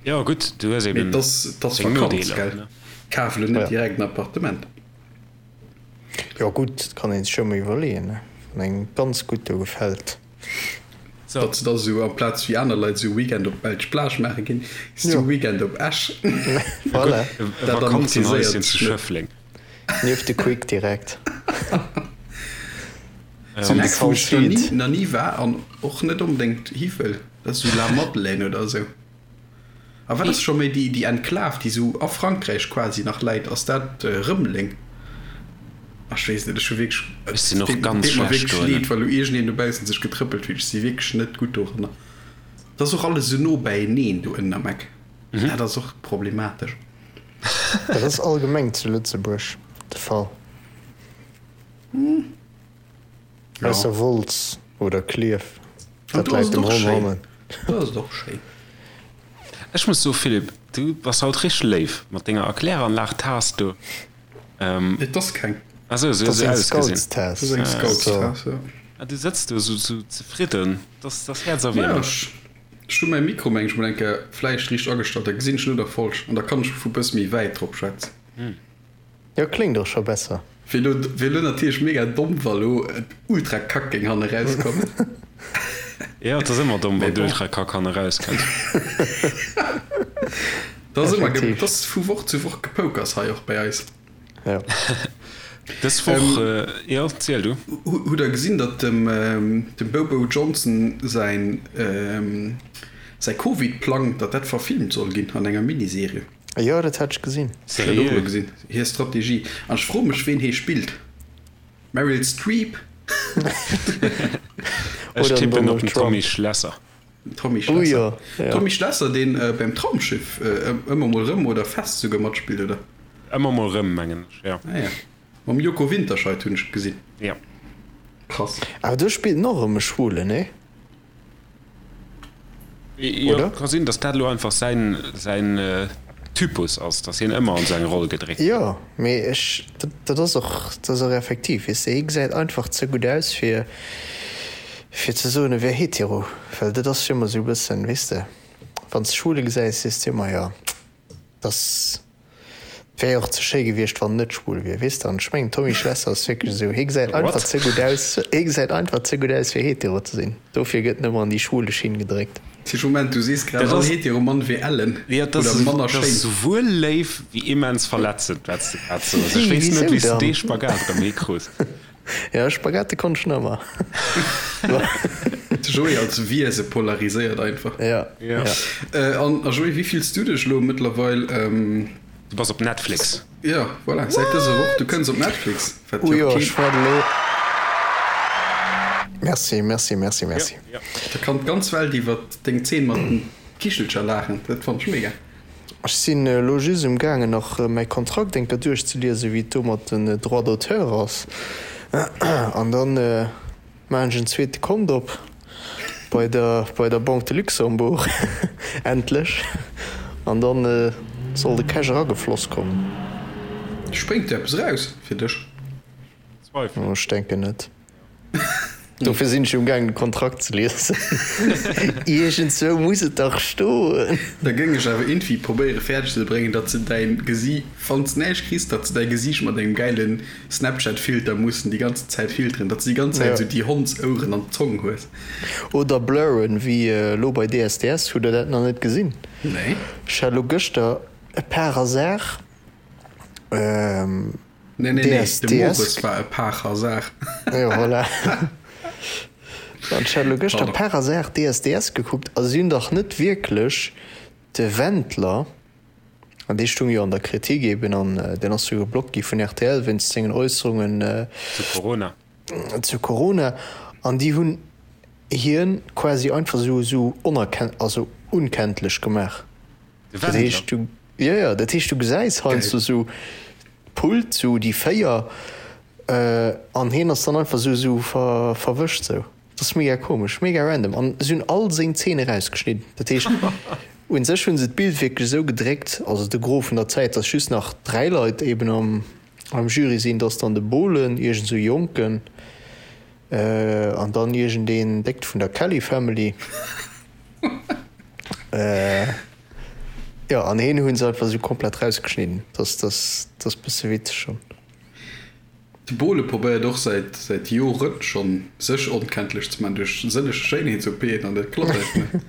Jo gutt, du hues eben deng Nodeeler. Mee 't ass Vakanz, gell? Kaf elo net direkt en Appartement. Jo gutt, dat kann een sech jo emol iwwerleeën, ne, wann engem ganz gutt do gefält. So. Datt se da sou amplaz wéi aner Leit sou Weekend op d'belsch Plage maache ginn, s du Weekend op Esch. Voilà. E Vakanzenhäuschen zu Schëffleng. Nieft de Quick direkt. Sou en Eck wou ech nach ni, nach ni war an och net onbedéngt hi wëll, dat ass sou La Madeleine oder sou. A wat ass scho méi déi, déi Enklav, déi sou a Frankräich quasi nach läit, ass dat Rëmeleng? Ach, ech weess net, ech hu wierklech, Ech sinn och ganz deet mer schlecht wierklech dohinner. leed, wa lo iergendeen dobaussen sech getrëppelt fillt, ech si wierklech net gutt doranner. Et ass och alles esou no bäieneen do ënnen am Eck, dat ass och problematesch. Dat ass allgemeng zu Lëtzebuerg de Fall. Ausser Wolz oder Klierf, dat läit dem Ronn hannen. Do ass et och schéin. Ech muss soen, Philippe, du bass haut richteg léif mat denger Erkläranlag-Taass do. Et ass keng. Ah sou, sou huet se ausgesinn. Dat ass eng Scoutstaass, jo. Ah, du sëtz do sou zefridden, dat ass häerzerwiermend. Ech hu mäi Mikro, meng ech, mol eng Kéier vläicht riicht agestallt, da gesinn ech elo der falsch an da kann ech vu bësse méi wäit drop schwätzen. Jo, kléngt och scho besser. Wier lo, wier lo natierlech mega domm wa lo et ultra kack géing hanne rauskommen. Jo, et ass ëmmer domm wann d'ultra kack hanne rauskënnt. Et ass ëmmer, et ass vu Woch zu Woch Gepoukers hei och bei eis. Jo. Dës Woch, jo, ziel du. Hutt der gesinn, datt dem dem Bobo Johnson säin säi Covid-Plang, datt dat verfilmt soll ginn an enger Miniserie? Jo, dat hat ech gesinn. Ech hat och elo gesinn, hir Strategie. An ech froe mech, ween hee spillt. Meryl Streep? Ech tippen op den Tommy Schlesser. Tommy Schlesser. Tommy Schlesser, deen beim Traumschiff ëmmer mol rëm oder fest souguer matspillt, oder? Ëmmer mol rëm, mengen ech, jo. Ah ja. Mam Joko Winterscheidt hunn ech gesinn. Jo. Krass. Awer do spillt en och erëm e Schwulen, nee? Jo, ka sinn, datt dat elo einfach säin, säin Typus ass, datt hien ëmmer an esou eng Roll gedréckt gëtt. Jo, mee ech, dat ass och, dat ass och effektiv, weess de, hie gesäit einfach ze gutt aus, fir, fir ze soen, e wär hetero, well dat ass jo ëmmer esou e bëssen, weess de, wann s de Schwule gesäis, sees de ëmmer, jo, dat ass. Wär jo och ze schéi gewiescht wann en net schwul wier, weess de. An ech mengen Tommy Schlesser ass wierklech esou, hie gesäit einfach ze gutt aus, hie gesäit einfach ze gutt aus fir hetero ze sinn, dofir gëtt en ëmmer an déi schwule Schinn gedréckt. Tisch, Moment, du sees grad all hetero Mann wier ellen oder manner schéin. Dat ass souwuel léif wéi immens verletzend wat s de grad soos. Ech weess net wéi s de dee Spagat erëm hikruss. Jo, Spaghetti konnt ech nach ëmmer. De Joé als Wiese polariséiert einfach. Ja, ja. An a Joé, wéi fills du dech elo mëttlerweil? Du bass op Netflix. Ja, voilà, säit dëser Woch, du kënns op Netflix. Wat jo keen. Ech waart elo. Merci, merci, merci, merci. Da kann d'ganz Welt iwwer deng Zeen mat den Kichelcher laachen, dat fannt ech mega. Ech sinn elo just um gaangen nach mäi Kontrakt eng Kéier duerchzeliesen, wéi et do mat den Droits d'auteur ass, an dann maachen ech en zweete Kont op bei der bei der Banque de Luxembourg, endlech, an dann soll de Cash eragefloss kommen. Spréngt do eppes eraus fir dech? Zweifelen. Ech denken net. Dofir sinn ech um gaangen de Kontrakt ze liesen. Iergendzwou muss et dach stoen. Da géing ech awer iergendwéi probéiere fäerdeg ze bréngen, datt se däin Gesi, wann s näischt kriss, datt se däi Gesiicht mat engem gäile Snapchat-Filter mussen déi ganzen Zäit filteren, datt s de déi ganz Zäit esou déi Hondsoueren an d'Zong hues. Oder blurren, wéi elo bei DSDS. Hutt der dat nach net gesinn? Nee. Ech hat elo gëschter par hasard. Nee, nee, nee, de Mores war e par hasard. Jo, voilà. An ech hat elo gëschter par hasard DSDS gekuckt a si hunn dach net wierklech de Wendler, an dee stung jo an der Kritik eben an deen ass jo geblockt gi vun rtl wéinst sengen Äusserungen zu Corona, zu Corona, an déi hunn hien quasi einfach esou esou onerken-, also unkenntlech gemaach. De Wendler? Jo, jo, dat heescht, du gesäis heiansdo sou d'Pult, sou déi 4, an hien ass dann einfach sou sou verwëscht sou. Dat ass mega komesch, mega random. An si hunn all seng Zeen erausgeschnidden. Dat heescht, u sech hu se d'Bild wierklech esou gedréckt, also de Gros vun der Zäit, dass just nach 3 Leit eben am am Jury sinn. Dat ass dann de Bohlen, iergend sou e Jonken, an dann iergendeen Déckt vun der Kelly Family. Jo, an heen hunn se einfach sou komplett rausgeschnidden. Dat ass dat ass bësse witzeg schonn. De Bohle probéiert och säit säit Joren schonn sech onkenntlech ze man duerch sëlleg Schéinheets-OPen an dat klappt einfach net.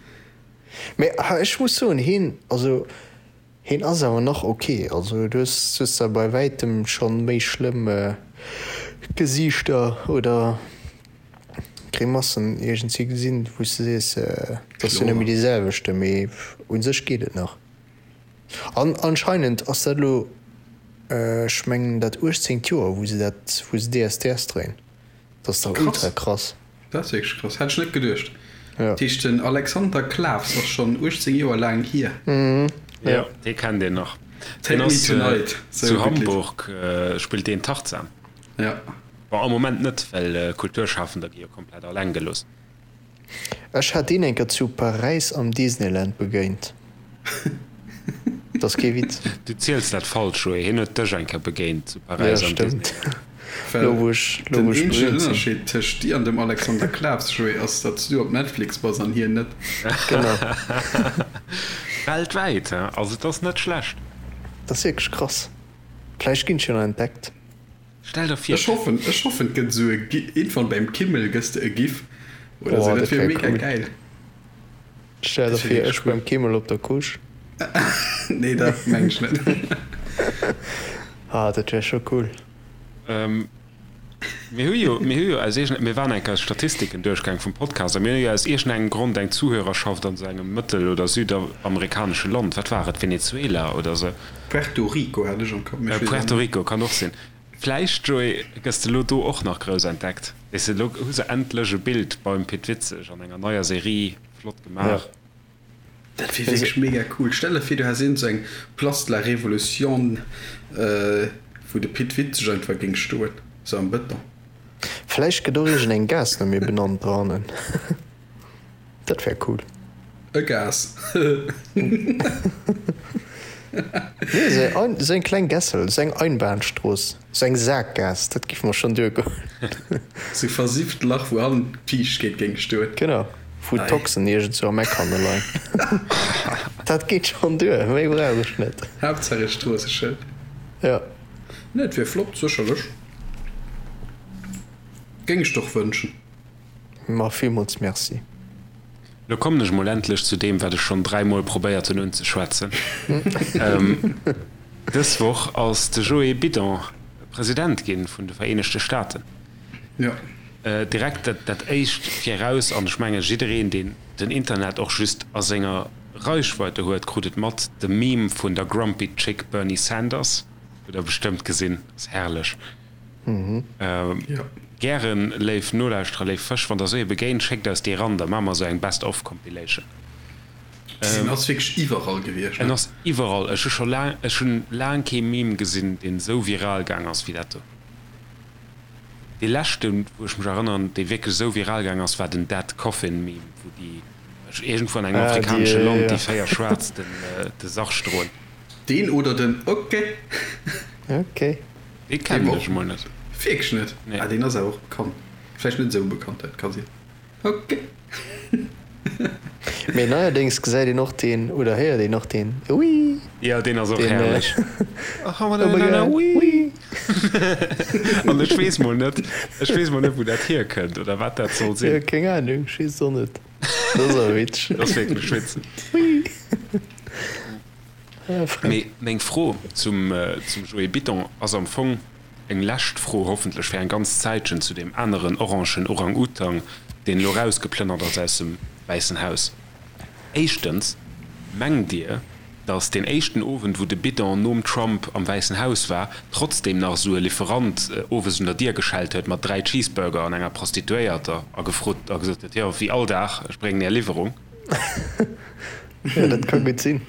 Mee ech muss soen, heen, also heen ass awer nach ok. Also du hues hues der bei wäitem schonn méi schlëmm Gesiichter oder. Grimassen iergendwéi gesinn, wou s de sees, et ass jo net méi dee selwechte, mee u sech geet et nach. An anscheinend ass dat elo, ech mengen dat uechtzéngt Joer, wou se dat, wou se DSDS dréien. Dat ass dach ultra krass. Dat ass wierklech krass, hätt ech net geduecht. Dat heescht den Alexander Klaws ass schonn 18 Joer laang hier. Jo, dee kennt een nach. Take me tonight, sou e gutt Lidd. Zu Hamburg spillt deen Tarzan. Jo. Bon, am Moment net, well Kulturschafender gi jo komplett alleng gelooss. Ech hat deen eng Kéier zu Paräis am Disneyland begéint. Dat ass kee Witz. Du ziels dat falsch, Joé. Hien huet dech eng Kéier begéint zu Paräis am Disneyland. Well Lo wou ech, lo den wou ech eenzegen berühmt sinn. Ënnerscheed tëscht dir an dem Alexander Klaws, Joé, ass, datt s du op Netflix bass an hien net. Genau. Weltwäit, he? Also et ass net schlecht. Dat ass wierklech krass. Vläicht ginn ech jo nach entdeckt. Stell der vir. Ech hoffen, ech hoffen et gëtt esou e Gi, iergendwann beim Kimmel gëss de e Gif oder esou, dat wier mega cool. Gäil. Stell der vir, ech beim Kimmel op der Couche. Nee, dat meng ech net. Ah, dat wär scho cool. Mir hu jo, mir hu jo aus iergend, mir waren eng Kéier d'Statistiken duerchgaang vum Podcast a mir hu jo aus iergendengem Grond eng Zuhörerschaft an esou engem mëttel oder südamerikanesche Land, wat war et, Venezuela oder esou? Puerto Rico hat ech am Kapp, mee ech weess et Puerto net. Rico kann och sinn. Vläicht, Joé, gëss de lo do och nach grouss entdeckt. Weess de, lo hu se endlech e Bild beim Pit Witzeg an enger neier Serie, flott gemaach. Dat wier wierklech mega cool. Stell der vir, du häss iergend sou eng Place de la Révolution, wou de Pit Witzeg einfach géing stoen, sou am Bëton. Vläicht gëtt och iergend eng Gaass no mir benannt dohannen. Dat wär cool. E Gaass. Nee, sou eng kleng Gässel, sou eng Einbahnstrooss, sou eng Saakgaass, dat giff mer schonn duergoen. Sou versifft Lach, wou hannen d'Fiichtkeet géing stoen. Genau, wou d'Toxen iergendzwou am Eck hanne leien. Dat geet schonn duer, méi brauch ech net. Haaptsaach e Stroosseschëld. Jo. Nee, et wier flott, sécherlech. Géing ech der och wënschen. Ma villmools Merci. Lo kommen ech mol endlech zu deem, wat ech schonn dräimol probéiert hunn unzeschwätzen. Dës Woch ass de Joe Bidon President ginn vun de Vereenegte Staaten. Jo. Direkt dat dat éischt viraus, an ech menge jiddereen, deen den Internet och just a senger Reichweite huet, krut et mat, de Meme vun der Grumpy Chick Bernie Sanders hutt der bestëmmt gesinn, ass herrlech. Gären, léif Nolauschterer, léif Fësch, wann der esou ee begéint, schéckt eis déi eran, da maache mer esou eng Best of Compilation. En ass wierklech iwwerall gewiescht, ne? En ass iwwerall. Ech hu scho laang, ech hunn laang kee Meme gesinn, deen esou viral gaang ass wéi dat do. Dee leschten, wou ech mech erënneren, dee wierklech esou viral gaang ass, war den Dead Coffin Meme, wou déi iergendwou an engem afrikanesche Land déi 4 Schwaarz den de Sarg droen. Deen oder den Ok. Ok. Dee kennen ech emol net. Wierklech net? Nee. Ah, deen ass awer och bekannt. Vläicht net esou bekannt, dat ka sinn. Ok. Mee neierdéngs gesäit een och deen, oder héiert een och deen Wii. Jo, deen ass och Deen, herrlech. Oh my God, wii. An ech weess mol net, ech weess mol net, wou dat hierkënnt oder wat dat soll Jo, sinn. keng Ahnung, ech weess et och net. Dat ass awer witzeg. Dat ass wierklech witzeg. Wii. Ah, Freck. Mee meng Fro zum, zum Joé Biton ass am Fong eng lescht Fro, hoffentlech fir eng ganz Zäitchen, zu deem aneren orangen Orang-Utang, deen elo rausgeplënnert ass aus dem Wäissen Haus. Éischtens, Mengt Dir, datt deen éischten Owend, wou de Bidon nom Trump am Wäissen Haus war, trotzdem nach esou e Lieferant owes un der Dier geschellt huet mat 3 Cheeseburger an enger Prostituéierter a gefrot a gesot huet, Jo, wéi all Dag, ech bréngen Är Liwwerung? Jo, dat ka gutt sinn.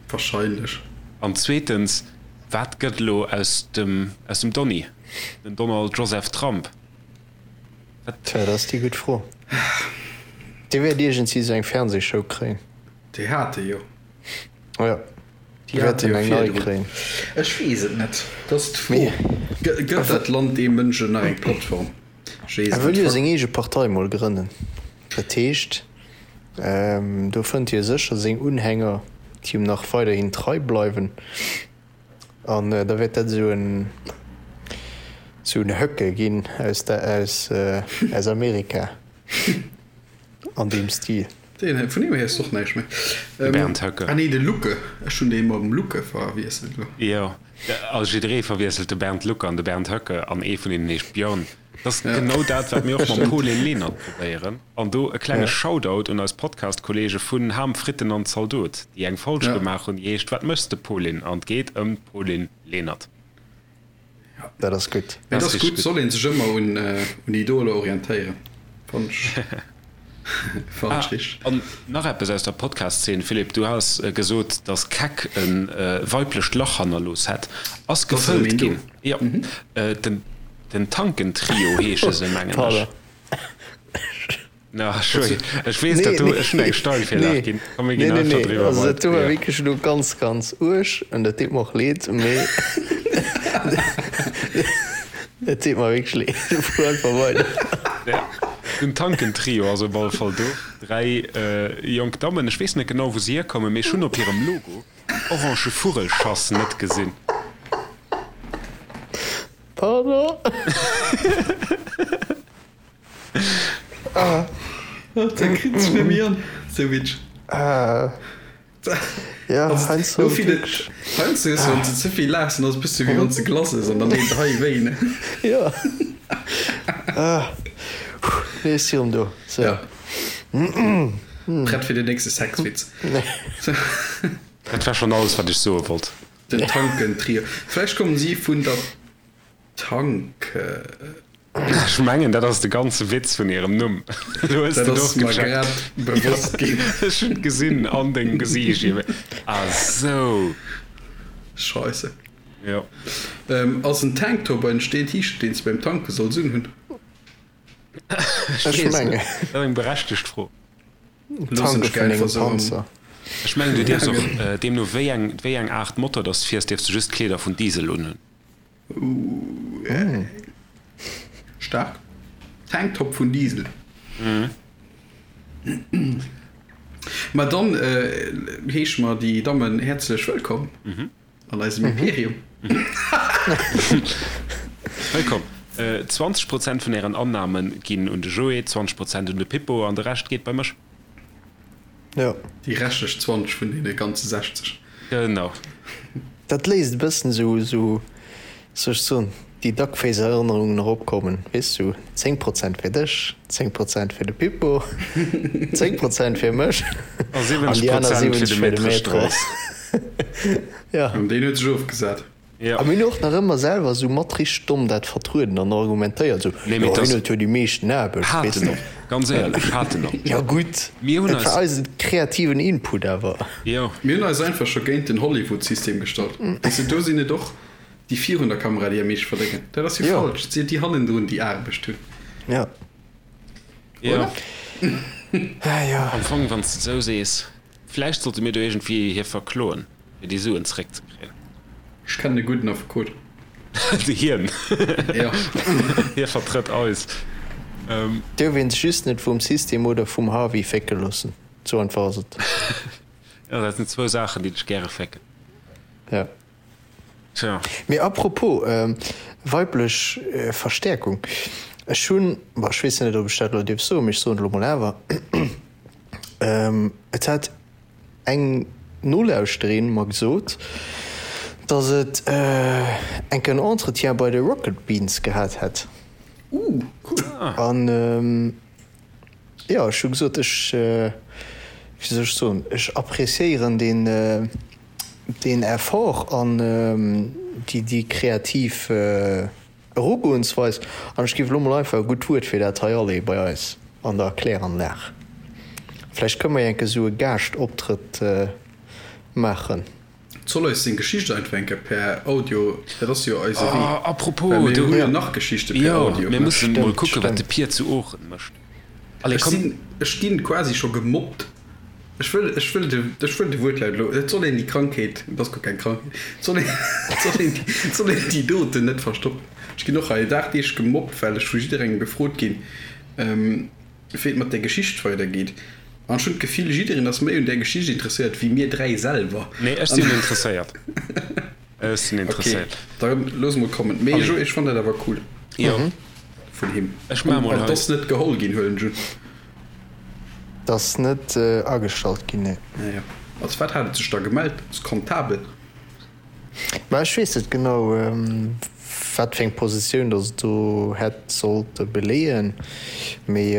Wahrscheinlech. An zweetens, Wat gëtt elo aus dem, aus dem Donny, den Donald Joseph Trump? Wat? Tja, dat ass déi gutt Fro. Dee wäert iergendwéi sou eng Fernsehshow kréien. Déi hat e jo. Jo, Déi hat e jo eng nei virdrun. kréien. Ech weess et net. Dat ass d'Fro. Mee Gëtt dat Land deem Mënsch nach eng Plattform? Ech weess e et wëll net. jo seng eege Partei mol grënnen. Dat heescht, do fënnt hie sécher seng Unhänger, déi him nach weiderhin trei bleiwen. An da wäert dat esou en esou en Höcke ginn aus der aus aus Amerika an deem Stil. Deen, vun deem héiers de och näischt méi. De Bernd Höcke. Ah nee, de Lucke. Ech hunn dee mam Lucke verwiesselt elo. Jo, also jidderee verwiesselt de Bernd Lucke an de Bernd Höcke an ee vun hinnen heescht Björn. Dat ass genau dat, wat mir och mam Pauline Lenert probéieren. An do e klenge Shoutout un eis Podcast-Kollege vun Ham, Fritten an Zaldot, déi eng Folg gemaach hunn, déi heescht Wat méchs de, Pauline? An et geet ëm d'Pauline Lenert. Dat ass gutt. Dat ass gutt, soll een sech ëmmer un Idoler orientéieren, fannen ech. Ah, an nach eppes aus der Podcast-Szene, Philippe, du has gesot, dass Keck e weiblecht Lach hannerlooss hätt. Ass gefëllt ginn. Jo, den Tanken-Trio heesche se, mengen ech. Na, ech weess, dat do, ech hunn eng Steilvirlag ginn. Komm, mir ginn einfach driwwer. Also dat do war wierklech elo ganz, ganz uerg an dat deet mer och leed, mee et deet mer wierklech leed. Fuer einfach weider. Ja, den Tanken-Trio ass op alle Fall do. 3 jonk Dammen, ech weess net genau wou se hierkommen, mee ech hunn op hirem Logo en orange Vugelschass net gesinn. Pardon? Ah, da kritt sech net méi an, sou witsch. Ah. Ja, heiansdo also, wierklech. Heiansdo hues du, wann s de ze vill laachs, dann ass et e bësse wéi wann s de Glace ëss an dann deet et hei wéi, ne? Ja. Ah. Nee, ech si rëm do. So. Ja. Prett fir den nächste Sexwitz. Dat war schonn alles, wat ech soe wollt. Den Tanken-Trio. Vläicht kommen si vun der Tanke. Ech mengen, dat ass de ganze Witz vun hirem Numm. Elo hues Dat de et ass och mer gecheckt. grad bewosst ginn. Ech hunn et gesinn an dengem Gesiicht. Ah sou. Scheisse. Jo. Ass en Tanktop ein Steen T-Shirt deen s de beim Tanke solls unhunn? Ech Ech weess net. mengen. Dat ass eng berechtegt Fro. Loossen Tanke ech vun einfach engem sou am. Panzer. Ech mengen, du dierfs och, deemno wéi eng, wéi eng Aart Motor dass de fiers, dierfs de just Kleeder vun Diesel unhunn. Staark. Tanktop vun Diesel. Ma dann heesche mer déi Dammen häerzlech wëllkomm an eisem Imperium. Wëllkomm. 20 Prozent vun ären Annahme ginn un de Joé, 20 Prozent un de Pippo an de Rescht geet bei mech. Jo. Déi reschtlech 20 vun deene ganze 60. Genau. Dat léisst e bëssen esou, esou, soll ech soen, déi Duckface-Erënnerungen eropkommen, weess du, 10 Prozent fir dech, 10 Prozent fir de Pippo, 10 Prozent fir mech A 70 Prozent fir de Maître Strauss. Ja. An deen huet sech ofgesat. Ja. A mir hunn och nach ëmmer selwer esou mat richteg domm dat vertrueden an argumentéiert, esou, Nee, mee jo, dass hien huet jo déi meeschten Aarbecht, Hat weess en de. och, ganz éierlech, hat en och. Jo gutt, Mir hunn dat war eis. eisen kreativen Input awer. Jo. Mir hunn eis einfach scho géint den Hollywood-System gestallt. Weess de, do sinn et och déi virun der Kamera, déi am meeschte verdéngen. Dat ass jo Jo. falsch. Et sinn déi hannendrun, déi Aarbecht hunn. Ja. Jo. Oder? Ah jo. Am Fong, wann s de et esou sees. Vläicht sollte mir do iergendwéi hie verkloen, fir déi Suen zeréckzekréien. Ech kennen e gudden Affekot. Hien. Jo. Hie vertrëtt eis. Duerf een sech just net vum System oder vum Harvey fécke loossen. Sou einfach ass et. Jo, dat sinn zwou Saachen, déi dech gäre fécken. Ja. Tja. Mee apropos weiblech Verstäerkung, ech hunn, bon, ech weess net, ob ech dat elo dierf soen, mee ech soen et elo mol awer, et hat eng Nolauschterin mer gesot, dass et enk en Entretien bei de Rocket Beans gehat hätt. Ooh, cool. An jo, ech hu gesot, ech, wéi soll ech soen, ech appréciéieren deen, deen Effort an déi, déi kreativ Erugoensweis. An ech géif elo mol einfach e gutt Wuert fir dat hei aleeë bei eis an der Kläranlag. Vläicht kënne mer jo enke sou e Gaaschtoptrëtt maachen. Soll eis seng Geschicht einfach eng Kéier per Audio, dat ass jo eise Wee, Oh, apropos, well mir do hu jo nach Geschichte per jo, Audio. mir mussen mol Stimmt, kucken, wat de stimmt. Pir zu Oochen mécht. Allez, Ech komm. sinn, ech ginn quasi scho gemobbt. Ech wëll, ech wëll de, ech wëll de Wuertlaut elo, et soll een déi Krankheet, et ass guer keng Krankheet, et soll een, et soll een, et soll een déi doten net verstoppen. Ech ginn och hei dagdeeglech gemobbt, well ech vu jidderengem gefrot ginn, wéi et mat där Geschicht weidergeet. An ech hunn d'Gefill, jiddereen ass méi un där Geschicht interesséiert wéi mir 3 selwer. Nee, ech sinn interesséiert. Ech sinn interesséiert. Ok, da looss mol kommen. Mee jo, ech fannen dat awer cool. Jo. Vun him. Ech maache mol hei. An 't ass net geholl ginn, huelen ech un. 't ass net agestallt ginn, nee. Ah jo. Als wat hat et sech da gemellt? Als Comptabel? Mä ech weess net genau, wat fir eng Positioun datt et do hätt sollte beleeën. Mee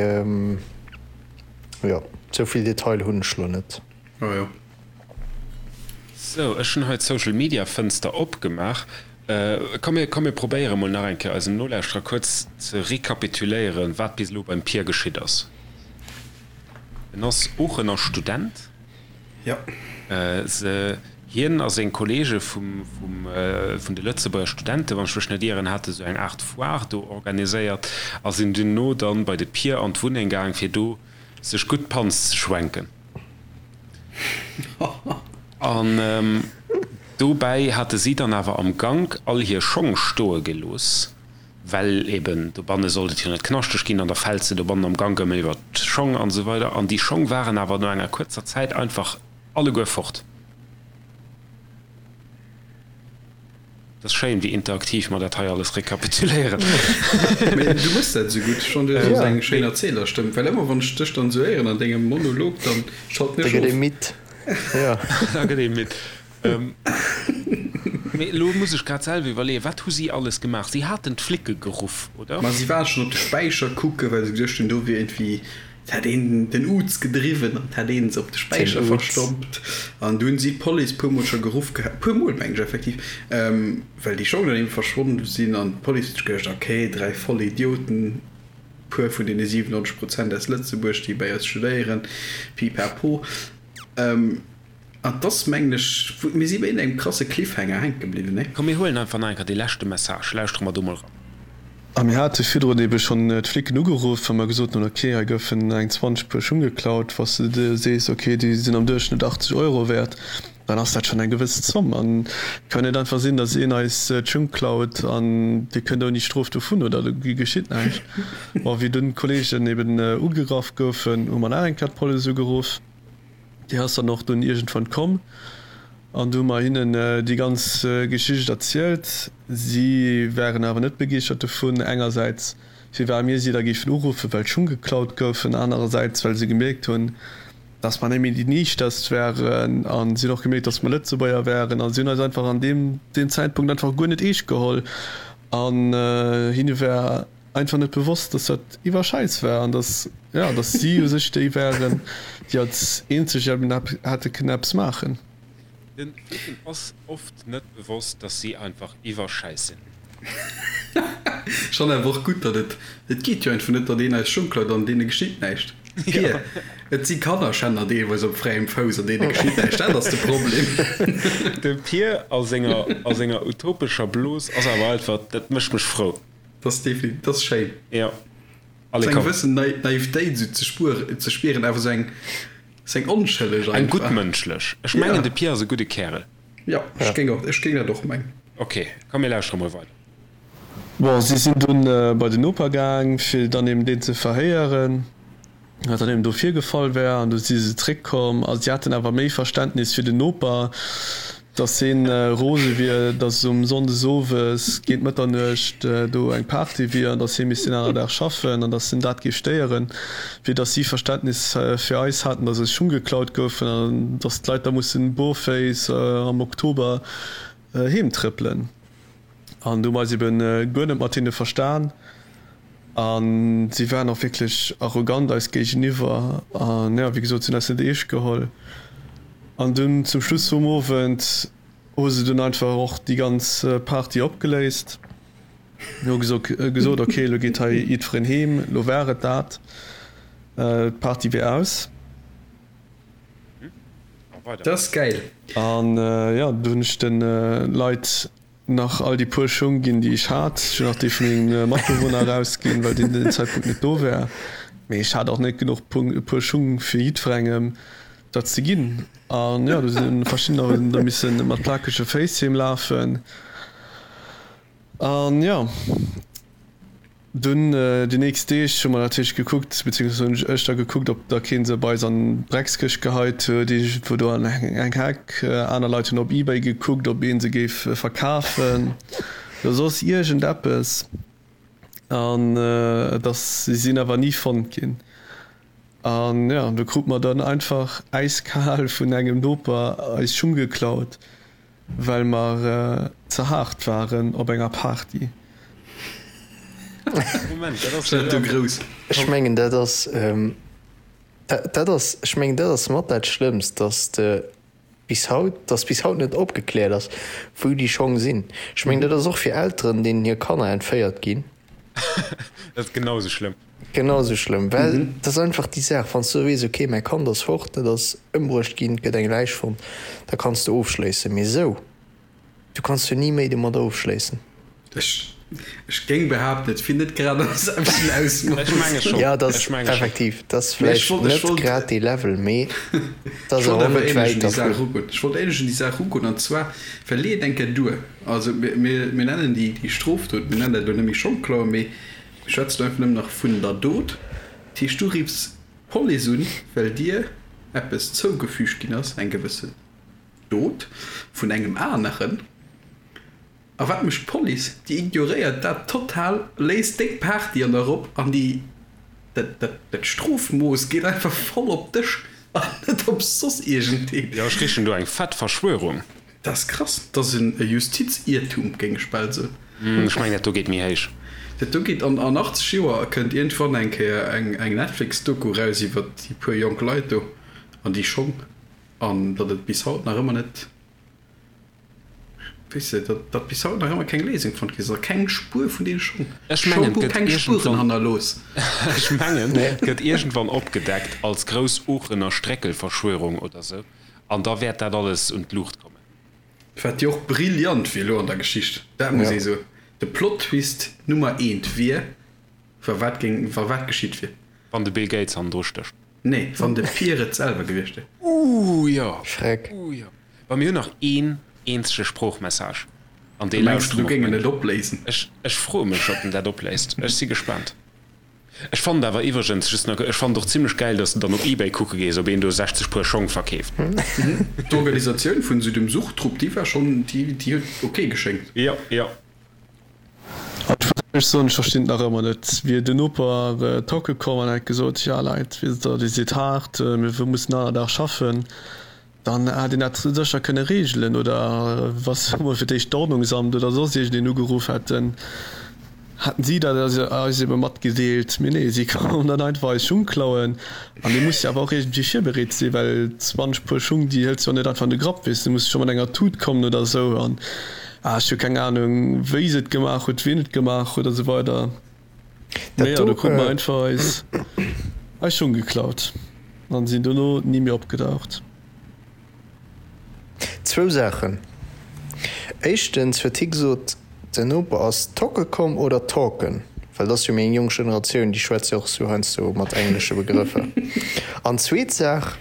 jo, esou vill Detail hunn ech lo net. Ah jo. Sou, ech hunn hei d'Social Media Fënster opgemaach. Komm mir, komm mir probéiere mol nach eng Kéier eisem Nolauschterer kuerz ze rekapituléieren, wat bis elo beim Pir geschitt ass. En ass Oochener Student. Jo. Se, hien a seng Kollege vum, vum, vun de Lëtzebuerger Studenten, wann ech mech net ieren, hate sou eng Aart Foire do organiséiert a sinn duerno dann bei de Pir an d'Wunneng gaang, fir do sech gutt d'Panz ze schwenken. An dobäi hate si dann awer am Gank all hir Schong stoe gelooss. Well eben dobanne sollt et jo net knaschteg ginn an da fält se dobannen am Gank ëmmer iwwer d'Schong an esou weider. An déi Schong waren awer no enger kuerzer Zäit einfach alleguer fort. Et ass schéin, wéi interaktiv mer dat hei alles rekapituléieren. Mee du méchs dat esou gutt. Ech fannen, du hues eng schéin Erzählerstëmm, well ëmmer wann ech dech dann esou héieren an dengem Monolog, dann schalten Da ech gëtt ee of. midd. Jo. Da gëtt ee midd. Mee elo muss ech grad selwer iwwerleeën, wat hu si alles gemaach? Si haten d'Flicke geruff, oder? Ma si waren schonn op de Späicher kucken, well se geduecht hunn, do wier iergendwéi, et hätt een den Uz gedriwwen an et hätt ee se op de Späicher verstoppt. An du hunn si d'Police puermol scho geruff gehat, puermol meng ech effektiv, well déi Schong dann eben verschwonn sinn. An d'Police huet sech geduecht, okay, 3 Vollidioten, puer vun deene 97 Prozent aus Lëtzebuerg, déi bei eis studéieren, pipapo. An 't ass, mengen ech, mir si bei iergendengem krasse Cliffhanger hänke bliwwen, nee? Komm mir huelen einfach nach eng Kéier dee leschte Message, lauschtere mer do mol ran. A mir hate virdrun ebe schonn d'Flicken ugeruff, wa mer gesot hunn, ok, hei goufen eng 20 Puer Schung geklaut. Wa s de dir sees, ok, déi sinn am Duerchschnëtt 80 Euro wäert, dann ass dat schonn eng gewëss Zomm. An et kann net einfach sinn, datt een eis d'Schung klaut an dir kënnt ouni Strof dovun oder do geschitt näischt. Bon, wéi dunn d'Kolleegen eben ugegraff goufen, hu mer nach eng Kéier d'Police ugeruff. Déi ass dann och dunn iergendwann komm an du hu mer hinnen déi ganz Geschicht erzielt. Si waren awer net begeeschtert dovun, engersäits firwat mir si da géifen uruffen, well d'Schung geklaut goufen, anerersäits well se gemierkt hunn, dass mer net méi déi Niichterst waren a si hunn och gemierkt, dass mer Lëtzebuerger waren a si hunn eis einfach an deem Zäitpunkt einfach guer net eescht geholl an hinne war einfach net bewosst, dass dat iwwer Schäiss war an dass, ja, dass si u sech déi waren, déi als eenzeg eben hätte kënnen eppes maachen. Den Flicken ass oft net bewosst, dass si einfach iwwer Schäiss sinn. Ech fannen awer och gutt, datt et, et geet jo einfach net, datt een eis Schung klaut an deene geschitt näischt. Pir, et si Kannerschänner deelweis op fräiem Fouss an deene geschitt näischt, dat ass de Problem. De Pir a senger, a senger utopescher Blos ass awer einfach, dat mécht mech frou. Dat ass definitiv, dat ass schéin. Jo. Allez, komm. Sou eng gewëssen Naivetéit sou ze spueren, ze spieren, awer sou eng, sou eng onschëlleg einfach. Eng guttmënschlech. Ech mengen, de Pierre ass e gudde Kärel. Jo, ech géing och, ech géing dat och mengen. Ok, komm mir lauschtere mol weider. Bon, si sinn dunn bei den Noper gaang, fir dann eben deen ze verhéieren, wat dann eben do virgefall wär. An du si se zréckkomm a si haten awer méi Verständnis fir den Noper, dass heen rose wier, dass um Sonndes owes géint Mëtternuecht do eng Party wier an dass hee misst deen aner Dag schaffen an dass en dat géif stéieren, wéi dass si Verständnis fir eis haten, dass eis Schung geklaut goufen an dass d'Leit da mussen bourféiss am Oktober heem trëppelen. An do hu mer eis eben guer net mat hinne verstan a si waren och wierklech arrogant eis géigeniwwer an jo, wéi gesot, si hunn eis net eescht geholl. An dunn zum Schluss vum Owend hu se dunn einfach och déi ganz Party opgeléist, hu gesot, ok, elo geet hei jiddwereen heem, elo war et dat, d'Party wier aus. Dat ass gäil. An jo, do hunn ech de Leit nach all déi puer Schung ginn, déi ech hat. Ech hunn och déi vu mengem Matbewunner erausginn, well deen den Zäitpunkt net do war. Mee ech hat och net genuch puer Schung fir jiddwerengem dat ze ginn. An jo, do si verschiddener hunn da misse mat plakege Féiss heem lafen. An jo. Dunn déi nächst Deeg hu mer natierlech gekuckt, beziehungsweise hunn ech da gekuckt, ob da keen se bei eis an d'Dreckskëscht geheit huet, iergendwou do an eng Heck. Aner Leit hunn op Ebay gekuckt, ob ee se géif verkafen oder soss iergendeppes. An et ass, si sinn awer ni fonnt ginn. An jo, do krute mer dann einfach äiskal vun engem Noper eis Schung geklaut. Well mer ze haart waren op enger Party. Moment, dat ass jo grouss. Ech mengen dat ass, dat ass, ech mengen dat ass mat dat Schlëmmst, dass de bis haut, dass bis haut net opgekläert ass, wou déi Schong sinn. Ech mengen dat ass och fir Elteren, deenen hir Kanner entféiert ginn. Dat ass genau esou schlëmm. Genau esou schlëmm, well dat ass einfach déi Saach, wann s du weess, ok, mäi Kand ass fort, et ass ëmbruecht ginn, et gëtt eng Läich fonnt, da kanns de ofschléissen. Mee esou, du kanns jo ni méi domadder ofschléissen. Ech, ech géing behaapten, et wier net grad am selwechten Ausmooss. Ech menge schonn. Jo, dat Ech ass menge schonn. effektiv, dat ass Mee ech vläicht wollt, ech net wollt, grad dee Level, mee dat ech ass wollt awer och awer net ähnlech un wäit déi Saach dervun. erugoen. Ech wollt ähnlech un déi Saach erugoen, an zwar, well lee et eng Kéier duer, also mir, mir, mir nennen déi, déi Strofdot, mir nennen dat elo net méi Schongklauen, mee Mir schwätzen einfach nëmmen nach vun der Dot. Dat heescht, du riffs d'Police un, well dir eppes zougefügt ginn ass, eng gewëssen Dot vun engem aneren. A wat mécht d'Police? Déi ignoréiert dat total, léisst deng Party an der Ropp an déi, dat, dat, dat Strofmooss geet einfach voll op dech an net op soss iergendeen. Jo, ech richen do eng fett Verschwörung. Dat ass krass. Dat ass e Justiziertum, géing ech bal soen. Ech mengen, dat do geet méi héich. Dat do geet an 80 Joer kënnt iergendwann eng Kéier eng Netflix-Doku raus iwwer déi puer jonk Leit do an déi Schong an datt et bis haut nach ëmmer net, weess de, datt datt bis haut nach ëmmer keng Léisung fonnt gi ass a keng Spuer vun deene Schong. Ech mengen, Schong hu et gëtt keng Spueren iergendwann, hannerlooss. ech mengen, et gëtt iergendwann opgedeckt als grouss Oochener Stréckelverschwörung oder sou. An da wäert dat alles un d'Luucht kommen. Wat jo och brillant wier elo an der Geschicht, dat muss ee soen, de Plot-Twist Nummer eent wier, wa wat géing, wa wat geschitt wier. Wann de Bill Gates hannendru stécht. Nee, wann de Pier et selwer gewiescht wier. Ooh jo, Schreck. ooh jo. Bon, mir hunn nach een eenzege Sproochmessage an dee Du mengs, lauschtere du mer géing op en et meng. opléisen? Ech, ech froe mech, ob en dat opléist. Ech si gespaant. Ech fannen awer iwwregens, just nach, ech fannen et och zimlech gäil, dass de dann op Ebay kucke gees, ob een do 60 Puer Schong verkeeft. D'Organisatioun vun esou dem Suchtrupp, déi war schonn, déi huet ok geschéngt. Jo, jo. An ech muss éierlech soen, ech verstinn et nach ëmmer net. Wier den Noper tocke komm an hätt gesot, Jo Leit, weess der, dir sidd haart, mir mussen aner Dag schaffen. Dann hätt een dat sécher kënne reegelen. Oder wa se emol fir d'éischt d'Ordnungsamt oder soss iergendeen ugeruff hätten, hätten si dat eis ebe matgedeelt. Mee nee, si kommen dann einfach eis Schung klauen. An dee muss jo awer och iergendwéi virbereet sinn, well 20 Puer Schung, déi hëls de jo net einfach an de Grapp, weess de. Du muss scho mat enger Tut kommen oder esou. An ah, ech hu keng Anung, wéi se et gemaach huet, wien et gemaach huet a sou weider. Mee jo, do krute mer einfach eis eis Schung geklaut an sinn dono ni méi opgedaucht. Zwou Saachen. Éischtens huet hie gesot, den Noper ass tocke komm oder talken? Well dat ass jo méi eng jonk Generatioun, déi schwätzt jo och sou heiansdo mat englesche Begrëffer. An zweet Saach,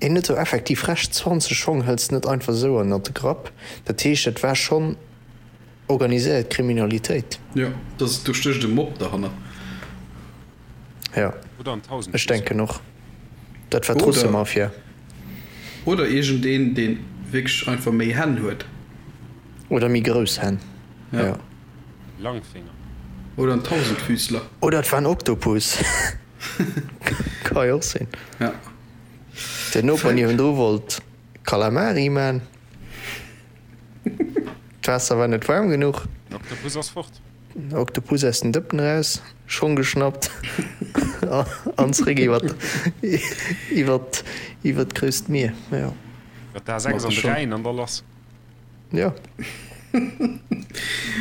hien huet jo effektiv Recht, 20 Schong hëls de net einfach esou ënnert de Grapp. Dat heescht, et war schonn. Organiséiert Kriminalitéit. Jo, dass do stécht e Mob derhannert. Jo, ech denken och. Dat war d'Russemafia. Oder iergendeen, dee wierklech einfach méi Hänn huet. Oder méi grouss Hänn, jo. Lang Fénger. Oder en Tausendfüßler. Oder et war en Oktopus. Ka jo och sinn. Ja. Den Noper niewendru wollt Calamari man. D'Waasser war net waarm genuch. Den Oktopus ass fort. Den Oktopus aus den Dëppen eraus, Schong geschnappt an zréck iwwer iwwer iwwer d'grousst Mier. Jo. Iwwer d'A6 an de Rhäin an da lass. Jo.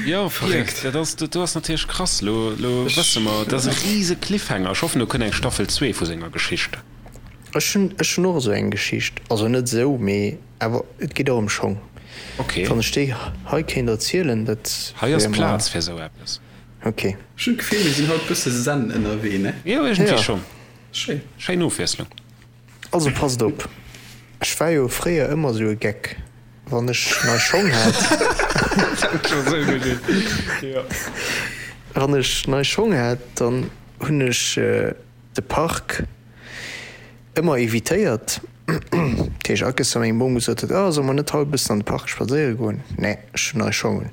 Jo, verréckt. Dat ass, dat do ass natierlech krass. Lo, lo wësse mer, dat ass e rise Cliffhanger. Ech hoffen, do kënnt eng Staffel 2 vu senger Geschicht. Ech hunn, ech hunn och esou eng Geschicht. Also net esou, mee awer et geet och ëm Schong. Ok. Wann ech déi hei kéint erzielen, dat Hei ass wär mer. Plaz fir esou eppes. Ok. Ech hunn d'Gefill, mir sinn haut bësse zen ënnerwee, ne? Jo, iergendwéi Jo. schonn. Schéin. Schéin Ofwiesslung. Also passt op, ech war jo fréier ëmmer esou e Geck. Wann ech nei Schong hat. Wann ech nei Schong hat, dann hunn ech de Park ëmmer evitéiert. Dat heescht, akes wa meng Bom gesot huet, oh solle mer net haut e bëssen an de Park spadséiere goen? Nee, ech hunn nei Schong un.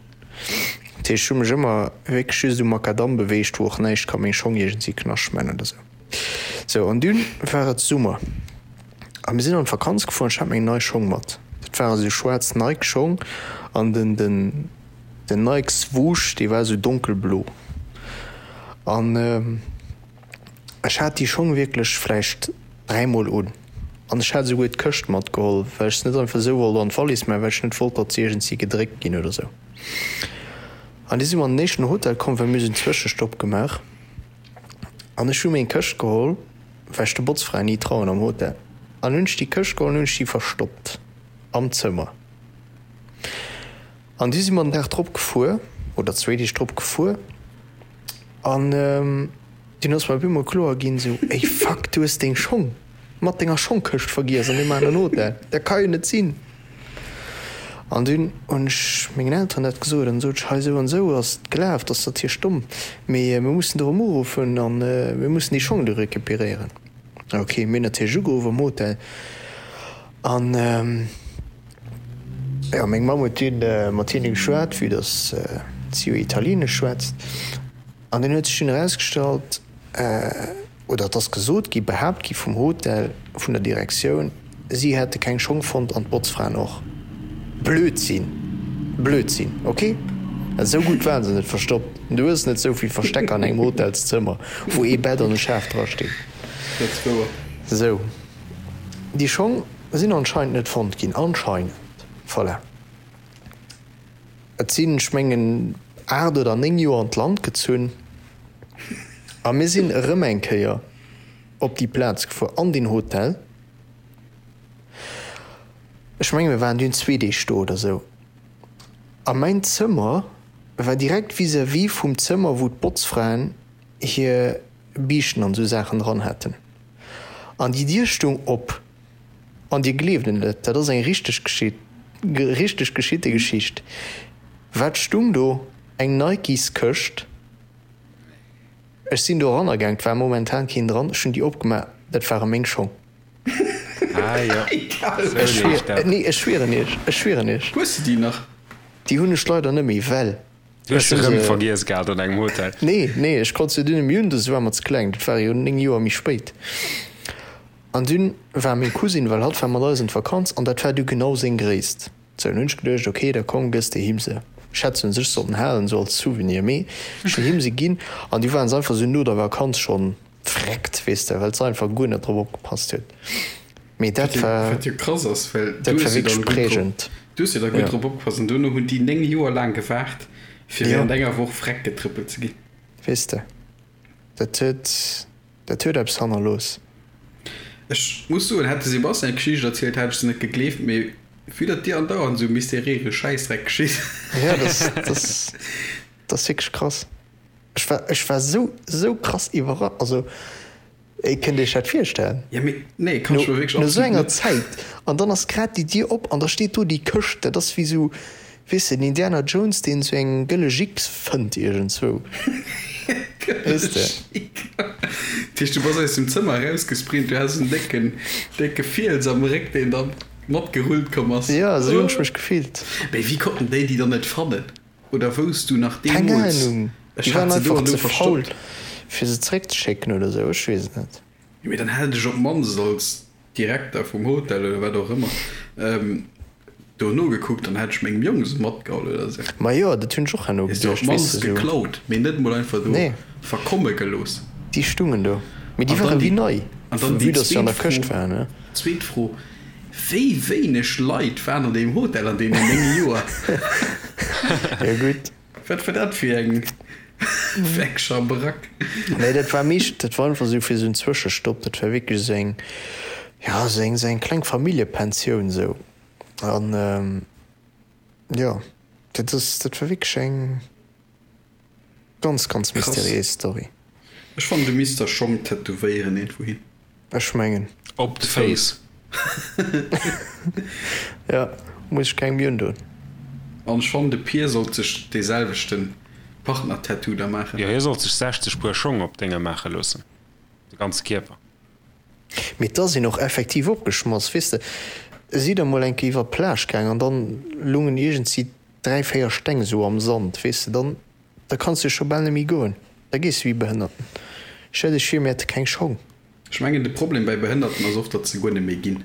Dat heescht, ech hu mech ëmmer wierklech just um Makadamm beweegt, wou och näischt ka meng Schong iergendwéi knascht man oder sou. Sou, an dunn war et Summer. A mir sinn an d'Vakanz gefuer an ech hat meng nei Schong mat. Dat ware sou schwaarz Nike Schong an den den den Nike Swoosh dee war sou donkelblo. An ech hat déi Schong wierklech vläicht dräimol un. An ech hat esouguer d'Këscht matgeholl, well ech se net einfach esou wollt an d'Wallis man, well ech net wollt, datt se iergendwéi gedréckt ginn oder sou. An du si mer an den éischten Hotel komm, well mir hu sou en Zwëschestopp gemaach. An ech hu meng Këscht geholl, well ech de Botzfraen ni trauen am Hotel, an hunn ech déi Këscht geholl an hunn ech déi verstoppt am Zëmmer. An du si mer den Dag drop gefuer, oder zwéi Deeg drop gefuer, an dunn ass mer op eemol kloer ginn, esou, Ey fuck, du hues deng Schong mat denger Schongkëscht vergiess an deem aneren Hotel, dat ka jo net sinn. An dunn hunn ech mengen Elteren dat gesot an sot ech, hei esou an esou ass et gelaf, dat ass natierlech domm, mee mir mussen do erëm uruffen an mir mussen déi Schong do recuperéieren. Ok, mir hunn natierlech ugeruff am Hotel an jo, meng Mamm huet dunn mat hinne geschwat, vue dass si jo Italienesch schwätzt an dunn huet sech dunn erausgestallt, oder et ass gesot gi, behaapt gi vum Hotel, vun der Direktioun, si hätte keng Schong fonnt an d'Botzfraen och. Blödsinn! Blödsinn, ok? Esou gutt waren se net verstoppt. Du hues net esou vill Verstecker an engem Hotelszëmmer, wou ee Bett an e Schaf drastinn. Dat ass wouer. Sou, déi Schong sinn anscheinend net fonnt ginn. Anscheinend. Voilà. Et sinn, ech mengen, 8 oder 9 Joer an d'Land gezunn a mir sinn erëm eng Kéier op déi Plaz gefuer, an deen Hotel. Ech menge mir waren dunn zwee Deeg do oder esou. A mäin Zëmmer war direkt vis-à-vis vum Zëmmer, wou d'Botzfraen hir Biischten an esou Saachen dran haten. An déi Dier stoung op. An dir gleeft et net, dat ass eng richteg richteg geschitte Geschicht. Wat stung do? Eng Nikes-Këscht. Ech sinn do eranner gaang, 't war momentan keen dran, ech hunn déi opgemaach, dat ware meng Schong. Ah jo, sou leeft dat. Nee, ech schwieren iech, ech schwieren iech. Hues de déi nach? Déi hunn ech leider net méi, well Du hues se rëm vergiess gehat an engem Hotel? Nee, nee, ech konnt se dunn net méi un, se war mer ze kleng, dat war jo 9 Joer méi spéit. An dunn war meng Cousine, well hatt war mat eis an d'Vakanz, an dat war du genau seng Gréisst. Sou, an hunn ech geduecht, ok, da komm, gëss de him se. Ech hätt se un sech sollen halen, sou als Souvenir, mee ech hunn him se ginn, an du waren se einfach sou no der Vakanz schonn vreckt, weess de, well se einfach guer net drop opgepasst huet. Mee dat war, Wat jo krass ass, well du dat war hues jo wierklech dann gutt drop, prägend. du hues jo da gutt Ja. drop opgepasst, an duerno hunn déi 9 Joer laang gewaart, fir Ja. während enger Woch vreck getrëppelt ze ginn. Weess de, dat huet. Dat huet eppes hannerlooss. Ech muss soen, hätt de Sebastian d'Geschicht erzielt, hätt ech se net gegleeft, mee vue datt dir andauernd esou mysteriéise Schäissdreck geschitt. Jo, dat ass, dat ass wierklech krass. Ech war, ech war esou, esou krass iwwerra, also kënnt Iech dat virstellen? Jo, mee nee, kann ech mer wierklech No esou absolut enger net. Zäit, an dann ass grad déi Dier op an da steet do déi Këscht, dat ass wéi esou. Weess de, den Indiana Jones, deen esou eng gëlle Jick fënnt iergendzwou. Weess de? Dat heescht, du bass aus dem Zëmmer erausgesprint, du has en décken, décke Fiels am Réck, deen da matgerullt komm ass. Jo, esou hunn ech mech gefillt. Mee wéi konnten déi déi dann net fannen? Oder wousst du nach Keng deemools, Ahnung. ech Déi waren hat se do einfach an do ze faul, verstoppt? fir se zeréckzeschécken oder esou, ech weess et net. Jo, mee dann hätt ech op d'mannst als Direkter vum Hotel oder wat och ëmmer do nogekuckt, dann hätt ech mengem Jong se matgeholl oder sou. Majo, dat hunn ech och herno Hues de op geduecht, weess d'mannst de sou. geklaut, mee net mol einfach do Nee. verkomme gelooss. Déi stungen do, mee déi An dann ware wéi déi, nei, an dann déi vue dass se an zweet der Këscht Fro, waren, ne? zweet Fro, Wéi wéineg Leit waren an deem Hotel an deenen 9 Joer? Jo gutt. Wat war dat fir eng fir eng Schabrack? Nee, dat war meescht, dat war einfach esou fir esou en Zwëschestopp. Dat war wierklech esou eng, ja, esou eng, esou eng kleng Familljepensioun esou. An jo, dat ass, dat war wierklech eng ganz, ganz Krass. mysteriéis Story. Ech fannen du misst der Schong tätowéieren iergendwou hin. Ech mengen. Op de Féiss. Ja, muss ech keng méi undoen. An ech fannen de Pier sollt sech dee selwechten Partner-Tattoo da maachen. Jo, hie sollt sech 60 Puer Schong op d'Dénge maache loossen, de ganze Kierper. Mee da sinn och effektiv opgeschmass, weess de. Si da mol eng Kéier iwwer d'Plage gaang an dann lungen iergendsi 3, 4 Steng esou am Sand, weess de. Dann, da kanns de scho bal net méi goen, da gees de wéi Behënnerten. Stell dech vir, mir hätte keng Schong. Ech mengen de Problem bäi Behënnerten ass oft, datt se guer net méi ginn.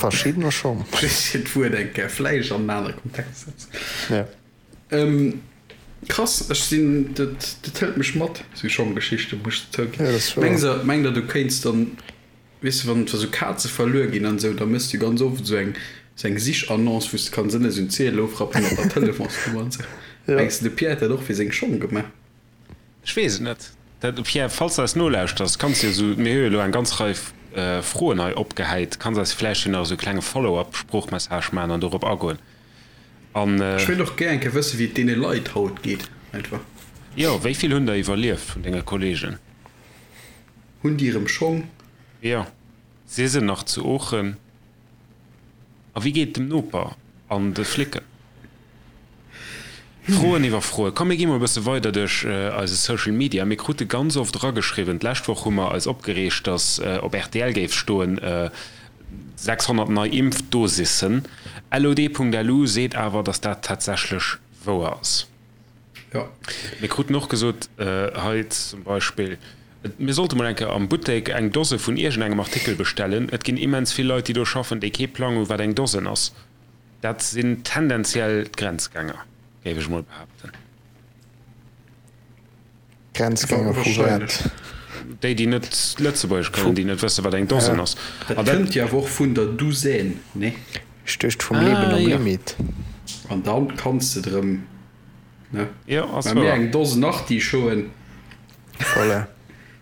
Verschiddener schonn. Just fir d'Wuert eng Kéier vläicht an en anere Kontext ze setzen. Ja. Krass, ech sinn, dat dat hëlt mech mat, esou Schonggeschichten, muss ech zouginn. Ja, dat ass wouer. Mengs der, mengt der du kéints dann, weess de, wann wa sou Kaze verluer ginn an esou, da méchs du ganz oft esou eng esou eng Sichannonce, wou s de kanns ënne esou en Ziedel ofrappen mat der Telefonsnummer an esou. Ja. Mengs de, de Pierre hätt dat och fir seng Schong gemaach? Ech weess et net. Dat, Pierre, falls de eis nolauschters, kanns de jo esou, mir hu jo elo eng ganz Rei Froen hei opgehäit, kanns eis vläicht jo nach esou e klenge Follow-up-Sproochmessage maachen an dorop agoen. An. Ech wéilt och gär eng Kéier wëssen, wéi et deene Leit haut geet, einfach. Jo, wéi vill hunn der iwwerlieft vun denge Kollegen? Hunn déi erëm Schong? Jo, si se nach zu Oochen? A wéi geet et dem Noper an de Flicken? Froen iwwer Froen. Komm mir gi mol e bësse weider duerch eise Social Media. Mir krute ganz oft erageschriwwen, d'lescht Woch hu mer eis opgereegt, datt op rtl géif stoen, 600 nei Impfdosissen. LOD.lu seet awer, datt dat tatsächlech wouer ass. Jo. Mir kruten och gesot, hei zum Beispill, mir sollte mol eng Kéier am Buttek eng Dose vun iergendengem Artikel bestellen. Et ginn immens vill Leit, déi do schaffen, déi kee Plang hu wat eng Dosen ass. Dat sinn tendenziell d'Grenzgänger, géif ech mol behaapten. Grenzgänger vu wat? Déi, déi net Lëtzebuergesch kënnen, déi net wëssen, wat eng Dosen ass. Dat kënnt jo awer och vun der Douzaine, nee? Ech duecht vum Leben am Limit. An dann kanns de drëm, ne? Jo, ass Mä mir wouer. eng Dosen Artichauten. Voilà.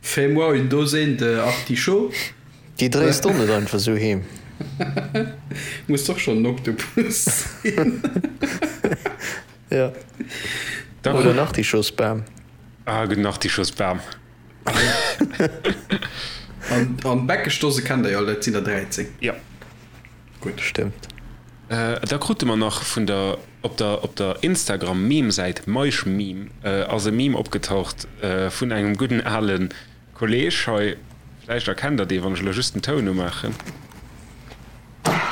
Fais-moi une douzaine de artichauts. Déi dréis d'On net einfach sou heem. Muss doch schon en Oktopus sinn. Ja. Oder en Artichautsbam. Ah, gudden Artichautsbam. An, an Bäckeschdose kennt der jo all, dat sinn der 13. Ja. Gutt. Stëmmt. Da krute mer nach vun der, op der, op der Instagram-Meme-Säit Meischmeme ass e Meme opgetaucht vun engem gudden ale Kolleg hei. Vläicht erkennt der dee, wann ech elo just den Toun umaachen.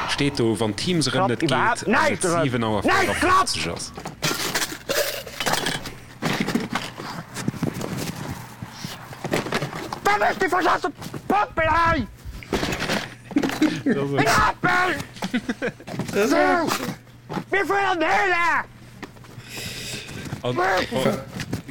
Steet do, wann Teams erëm net geet an et 7 Auer 54 ass.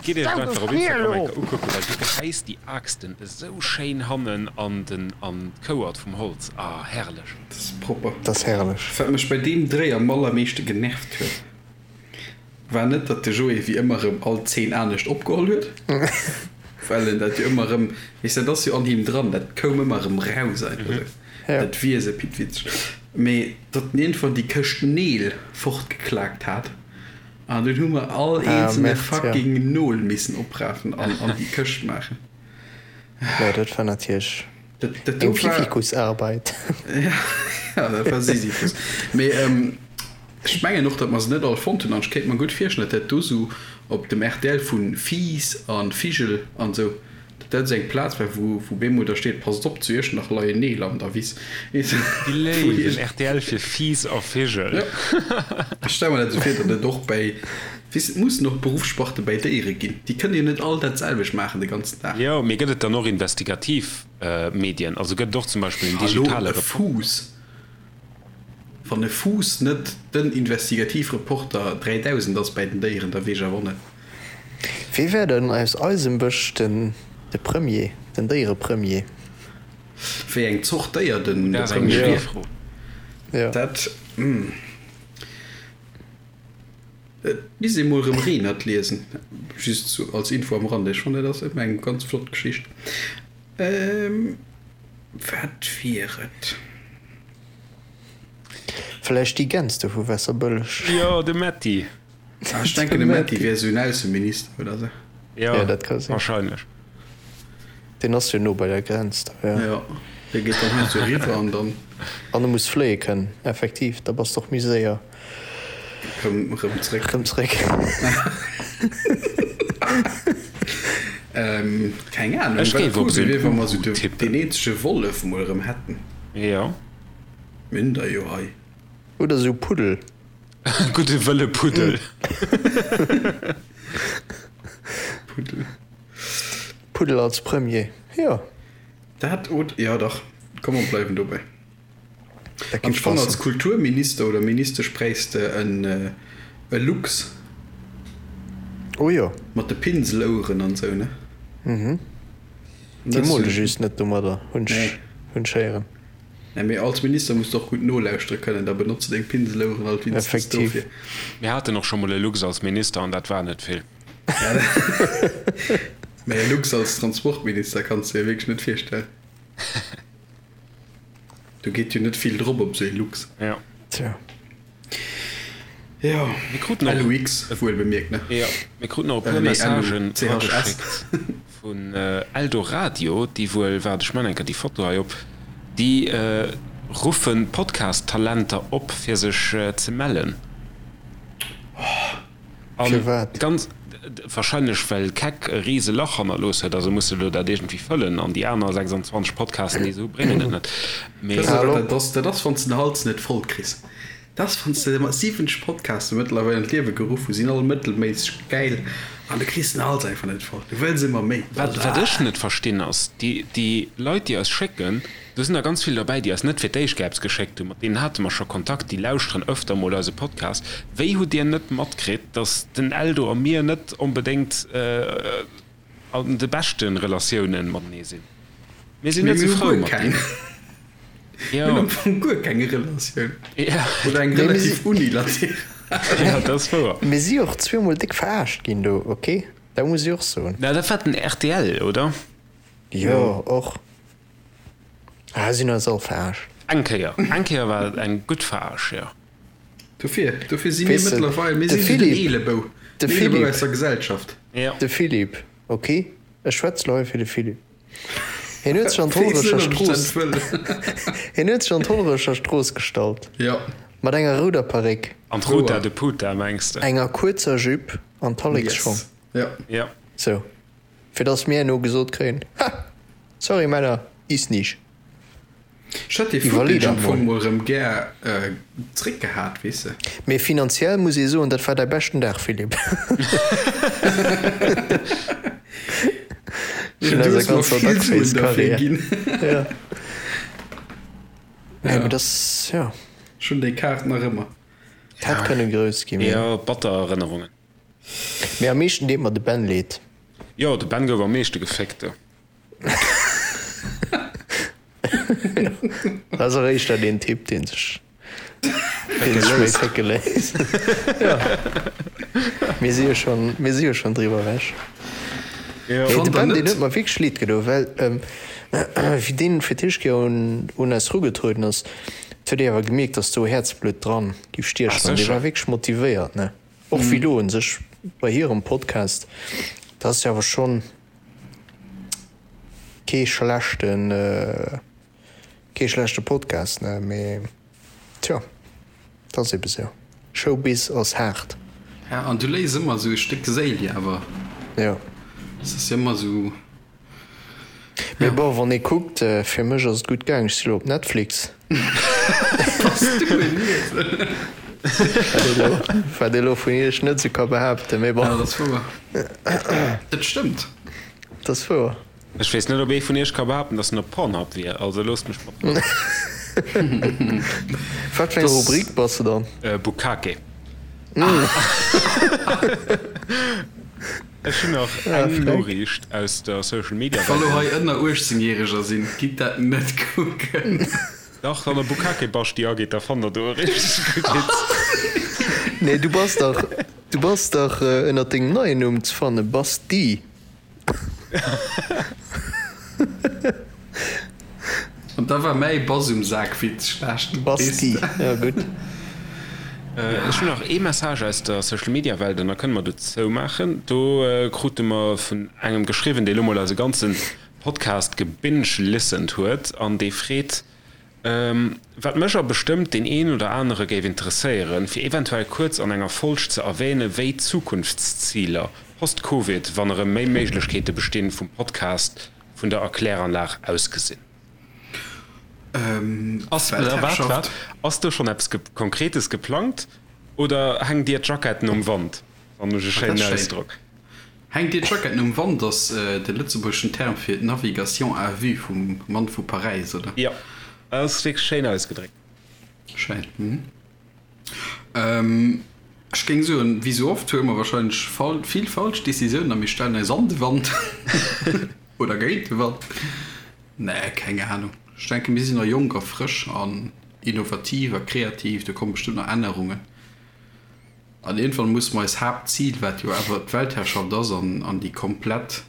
Gitt iech et einfach op Instagram eng Kéier ukucken, well du gehäis déi Aaxten esou schéin hannen an den an d'Kouert vum Holz. Ah herrlech! Dat ass propper. Dat ass herrlech. Wat mech bei deem Dréi am allermeeschte genervt huet, war net, datt de Joé wéi ëmmer erëm all Zeen anescht opgeholl huet, well en dat jo ëmmer erëm, weess, dat ass jo an him dran, dat koum ëmmer erëm raus einfach esou, dat Wiese Pittwitzeg, mee datt en iergendwann déi Këscht Neel fortgeklaakt hat an dunn hu mer all eenzelne fucking Nol missen oprafen an an déi Këscht maachen. Jo, dat war natierlech eng Fifikusarbeit. Ja, dat war Sisyphus. Mee. Ech mengen och, datt mer se net all fonnt hunn an ech kéint mer gutt virstellen, datt dat do sou op dem rtl vu Fiiss a Vigel an esou, datt dat esou eng Plaz war, wou wou bemol da steet, Passt op, zu Iechternach leien Neel an der Wiss. Weess de, Déi wou léiwen iergend. Rtl fir Fiiss a Vigel. Jo, ech stelle mer dat esou vir, datt et och bäi, weess de, et mussen och Beruffssparte bäi Déiere ginn. Déi kënne jo net all dat selwecht maachen de ganzen Dag. Jo, mee gëtt et dann och investigativ Medien? Also gëtt et och zum Beispill en Hallo, digitale e Reporter? Fuuss. Wann e Fuuss net den Investigativreporter 3000 ass bäi den Déieren, da weess ech awer och net. Wee wär denn aus eisem Bësch den de Premier, den Déierepremier? Wéi eng Zort Déier den Dat ass eng Premier schwéier wier? Fro. Jo. Dat, hm. Et misst ee mol erëm Renert liesen, just sou als Info am Rande. Ech fannen, dat ass ëmmer eng ganz flott Geschicht. Wat wier et? Vläicht déi Gäns do vu Wässerbëlleg. Jo, de Metty. Ah, ech denken, de Metty wier esou en Ausseminister oder esou. Jo, Ja, dat ka sinn. wahrscheinlech. Deen ass jo no bei der Grenz da, jo. Jo, dee geet dann hei esou eriwwer an dann. An e muss fléie kënnen, effektiv, da bass de och méi séier. Rëm, rëm zréck. Rëm zréck. Keng Ahnung, Ech wat géif op cool esou wier, en wa mer esou Uhu de, tippen. deen eenzege Wollef mol erëm hätten. Jo. Mir hunn der jo hei. Oder esou Puddel. Gudde wëlle Puddel. Puddel. Puddel als Premier, jo. Dat od, jo dach, komm mer bleiwen dobäi. Dat An géif ech fannen, als passen. Kulturminister oder Ministesch bräichs de en e Luchs. Oh jo. Mat de Pinseloueren an esou, ne? Mhm. Déi mole just net domadder, hunn ech, hunn ech héieren. Nee, mee als Minister muss de och gutt nolauschtere kënnen, da benotze deng Pinseloueren alt wéinstens Effektiv. dofir. Mir haten och scho mol e Luchs als Minister an dat war net vill. Mee e Luchs als Transportminister kanns de dir wierklech net virstellen. Do geet jo net vill drop op esou ee Luchs. Ja. Tja. Jo, Mir kruten och, LUX wuel bemierkt, ne? jo, mir kruten och e puer Nee, Messagen LUCHS. erageschéckt vun Eldoradio, déi wuel, waart, ech man eng Kéier déi Foto hei op, déi ruffen Podcast-Talenter op, fir sech ze mellen. An Firwat? ganz wahrscheinlech well Keck e rise Lach hannerlooss huet, also muss se elo dat iergendwéi fëllen an déi aner 26 Podcasten déi se hu bréngen et net. Mee. Weess de wat dat ass? Dat ass wann s de den Hals net voll kriss. Dat ass wann s de mat 70 Podcaste mëttlerweil an d'Liewe geruff hu sinn all mëttelméisseg gäil an du kriss den Hals einfach net voll. Du wëlls ëmmer méi. Wat wat ech net verstinn ass, déi déi Leit déi eis schécken, Do sinn der ganz vill derbäi, déi eis net fir d'éischt Gaps geschéckt hunn. Mat deenen hate mer scho Kontakt, déi lauschteren öfter mol eise Podcast. Wéi hutt Dir net matkritt, datt den Eldo a mir net onbedéngt an de beschte Relatiounen matenee sinn? Mir sinn Mee net mir sou hu frou guer mat keng. deenen. Mir hunn Jo. am Fong guer keng Relatioun. Ja. Oder eng Nee, mir relativ si. unilateral. Ja, dat ass wouer. Mir si och zweemol déck verarscht ginn do, ok? Dat muss ech och soen. Na, dat war den rtl, oder? Jo, och. Ah, sinn eis all verarscht. Eng Kéier, eng Kéier war et eng gutt Veraarsch, jo. Dofir, dofir si mir Weess de, mëttlerweil, mir de si sou den Philippe, Eelebou, de den Eelebou Philippe, aus der Gesellschaft. Jo. de Philippe, ok, ech schwätz lo hei fir de Philippe. Hien huet sech an Weess net, d'Hollerecher ob ech dat Strooss, wëll. hien huet sech an d'Hollerecher Strooss gestallt, Jo. mat enger rouder Paréck, An d'Ruta Wouer. de Puta, mengs de? enger kuerzer Jupe an Talleksschong. Yes. Jo. Jo. Sou, fir dass mir herno gesot kréien, Ha! Sorry Männer, is nicht. Ech hätt dee Iwwerlee Footage dat am Fong mol. mol rëm gär zréck gehat, weess de. Mee finanziell muss ee soen, dat war däi beschten Dag, Philippe. Vun Du eiser hues mer ganzer vill Suen derfir Duckface-Karriär. ginn. Ja. Nee, Ja. mee dass, ja. Ech hunn déi Kaart nach ëmmer. Hätt kënne grouss ginn, mee. Jo, batter Erënnerungen. Mee am meeschten deet mer de Ben leed. Jo, de Ben gouf am meeschte geféckt do. Dat ass och éischter deen Typ, dee sech, dee sech méi fécke léisst. Jo, mir si jo schonn, mir si jo schonn driwwer ewech. Jo. Nee, de Fannt der Ben, deen net? huet mer wierklech leed gedoen, well wéi deen fir d'éischt Kéier un, un eis erugetrueden ass, huet ee awer gemierkt, dass do Häerzblutt dran giff Ah, stiechen an dee sécher. war wierklech motivéiert, ne? Och wéi lo un sech bei hirem Podcast, dat ass jo awer schonn kee schlechten, kee schlechte Podcast, ne, mee tjo, dat ass ebe sou. Showbiz ass haart. Ja, an du léis ëmmer esou e Stéck Séil jo awer. Jo. Et ass jo ëmmer esou. Mee bon, wann ee kuckt, fir mech ass et gutt gaang, ech si lo op Netflix. Bass du en Iesel? Wat ee lo vun iech net esou ka behaapten, mee bon. Ja, dat ass wouer. Dat stëmmt. Dat ass wouer. Ech weess net, ob ee vun iech ka behaapten, dass en op Pornhub wier, also loosst mech mat Rou. Wat fir eng Rubrik bass de dann? Bukkake. Ech hunn nach eng Noriicht aus der Social Media Welt. Wa lo hei ënner 18 Järeger sinn, gitt dat net kucken. Dach, wann der Bukkake Basti agitt, da fannt der do e richteg gutt Witz. Nee, du bass dach, du bass dach ënnert dengem neien Numm ze fannen, Basti. An da war mäi Bass um Sak Witz schlecht. Basti, ja gutt. Ech hunn nach ee Message aus der Social Media Welt an da kënne mer do zoumaachen. Do krute mer vun engem geschriwwen, dee lo mol eise ganze Podcast gebinge-listened huet an dee freet, Wat mech a bestëmmt deen een oder anere géif interesséieren, fir eventuell kuerz an enger Folg ze erwähnen, wéi d'Zukunftsziler post-Covid, wann erëm méi Méiglechkeete bestinn, vum Podcast vun der Erkläranlag ausgesinn. Ass, waart, waart, ass do schonn eppes Konkretes geplangt oder hänkt Dir d'Jacketten um Wand? Fannen ech e schéinen Ausdrock. Hänkt dir d'Jacketten um Wand ass de lëtzebuergeschen Term fir d'Navigation à vue vum Mann vu Paräis, oder? Jo, dat ass wierklech schéin ausgedréckt. Schéin, hm. Ech géing soen, wéi sou oft huele mer wahrscheinlech vill falsch Decisiounen a mir stellen eis an de Wand oder géint de Wand. Nee, keng Ahnung. Ech denken, mir sinn nach jonk a frësch an innovativ a kreativ, do komme bestëmmt nach Ännerungen. An iergendwann musse mer eis Haaptzil, wat jo awer d'Weltherrschaft ass an déi komplett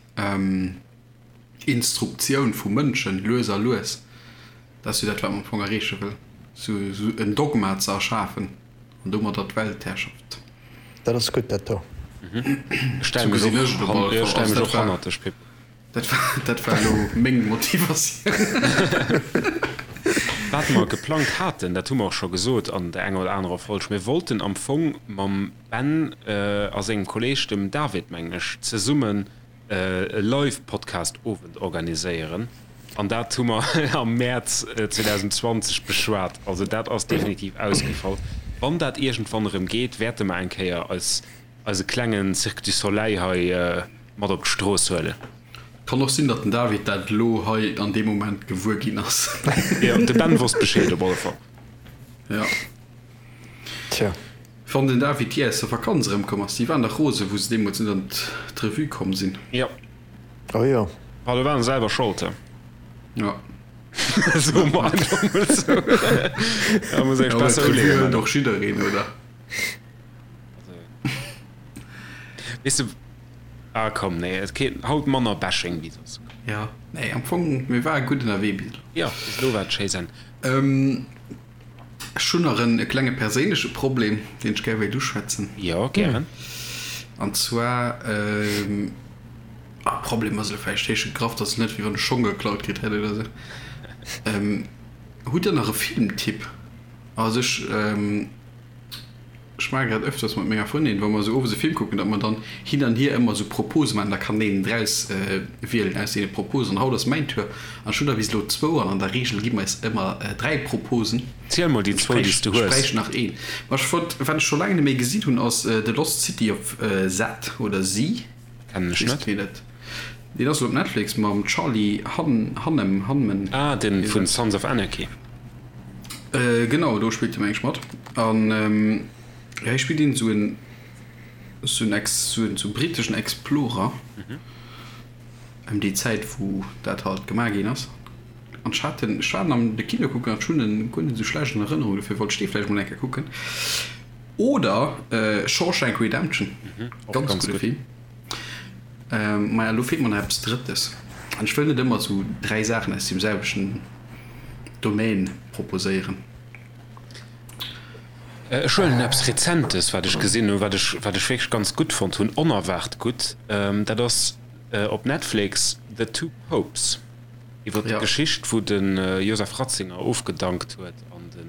Instruktioun vu Mënschen, lues a lues, dat ass jo dat, wat mer am Fong erreeche wëllen, esou en Dogma ze erschafen an domadder d'Weltherrschaft. Dat ass gutt, dat do. Ech stelle mech och hannert dech, Pip. Dat war, dat war elo meng Motivatioun. Wat mer geplangt haten, dat hu mer och scho gesot an der enger oder anerer Folg, mir wollten am Fong mam Ben a sengem Kolleeg, dem David, mengen ech, zesummen e Live-Podcast-Owend organiséieren. An dat hu mer am Mäerz 2020 beschwat. Also dat ass definitiv ausgefall. Wann dat iergendwann erëm geet, wäerte mer eng Kéier eis eise klengen Cirque du Soleil hei mat op d'Strooss huelen. Kann och sinn, datt den David dat elo hei an deem Moment gewuer ginn ass. Jo, de Ben wosst Bescheed op alle Fall. Jo. Tja. Wann den David jee aus der Vakanz erëmkomm ass. Déi waren dach rose wou se deemools net an d'Revue komm sinn. Jo. Oh jo. Ah, do waren se selwer Schold, he? Jo. Soe mer einfach mol esou. Da muss ech besser Revue uleeën. hëlt och jiddereen, oder? Weess de, ah komm, nee, et kritt haut manner Bashing wéi soss. Ja, nee, am Fong, mir ware gutt ënnerwee bis elo. Jo, bis elo war et schéi Senn. Ech hunn nach en klenge perséinleche Problem, deen ech gär wéilt uschwätzen. Jo, gären. An zwar, ah, Problem ass elo vläicht héich gegraff, dat ass net wéi wann ech Schong geklaut kritt hätt oder esou. Hutt Der nach e Filmtipp? Also ech, Ech maache grad öfters mat menger Frëndin, wa mer esou owes e Film kucken, datt mer dann hin an hier ëmmer esou Propose maachen. Da kann een draus wielen aus deene Proposen. An haut ass mäin Tour an ech hunn der bis elo zwou an an der Reegel gi mer eis ëmmer 3 Proposen. Ziel mol déi zwou, déi s du Ech hues. bräicht nach een. Ma ech wollt, wat ech scho laang net méi gesinn hunn, ass The Lost City of Z oder Z. Kennen ech net. Deen ass elo op Netflix mam Charlie Hunnam, Hunman. Ah, den vun Sons of Anarchy. Genau, do spillt e meng ech mat. An jo, hie spillt een esou en, esou en Ex, esou en esou briteschen Explorer. Ëm déi Zäit wou dat halt gemaach ginn ass. An ech hat en, ech war en am de Kino kucken an ech hunn en guer net esou schlecht an Erënnerung, dofir wollt ech dee vläicht mol eng Kéier kucken. Oder Shawshank Redemption, ganz gudde Film. Maja, elo feelt mer nach eppes Drëttes. An ech wëll net ëmmer esou 3 Saachen aus deem selwechten Domaine proposéieren. Ech huelen eppes Rezentes, wat ech gesinn hunn, wat ech, wat ech wierklech ganz gutt fonnt hunn, onerwaart gutt. Dat ass op Netflix The Two Popes, iwwer d'Geschicht, wou de Joseph Ratzinger ofgedankt huet an de.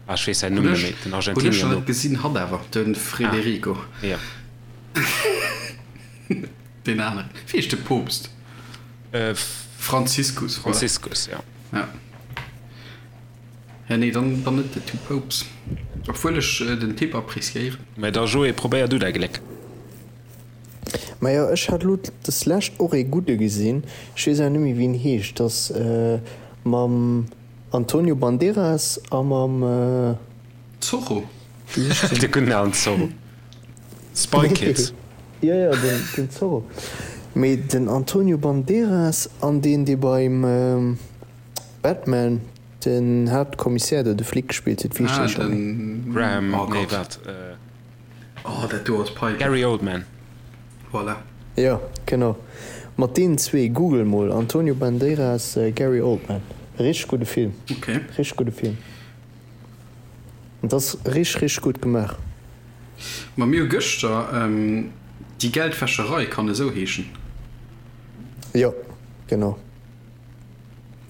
Ah, ech weess säin Numm net méi, den Argentinier do. Hunn ech nach net gesinn, hatt awer, de Frederico. Ah, jo. Deen aneren. Wéi heescht de Poopst? Franziskus, voilà. Franziskus, jo. Ja. Ja, nee, dann, dann net The Two Popes. Obwuel ech den Typ appreciéieren. Mä da Joé, probéier du däi Gléck. Majo, ech hat lo deslescht och ee gudde gesinn, ech weess awer net méi wéi en heescht, ass mam Antonio Banderas a mam. Zorro? Wéi heescht deen? De gudden alen Zorro. Spy Kids. Jo, jo, den Zorro. Mee den Antonio Banderas an deen, dee beim Batman den Haaptkommissär do, de Flic gespillt huet, wéi heescht dee scho méi? Graham, nee, wat? Oh, dat do ass peinlech. Gary Oldman. Voilà. Jo, genau. Mat deenen zwee. Google mol, Antonio Banderas, Gary Oldman. Richteg gudde Film. Ok. Richteg gudde Film. Et ass richteg, richteg gutt gemaach. Ma mir hu gëschter Die Geldwäscherei, kann esou heeschen? Jo, genau.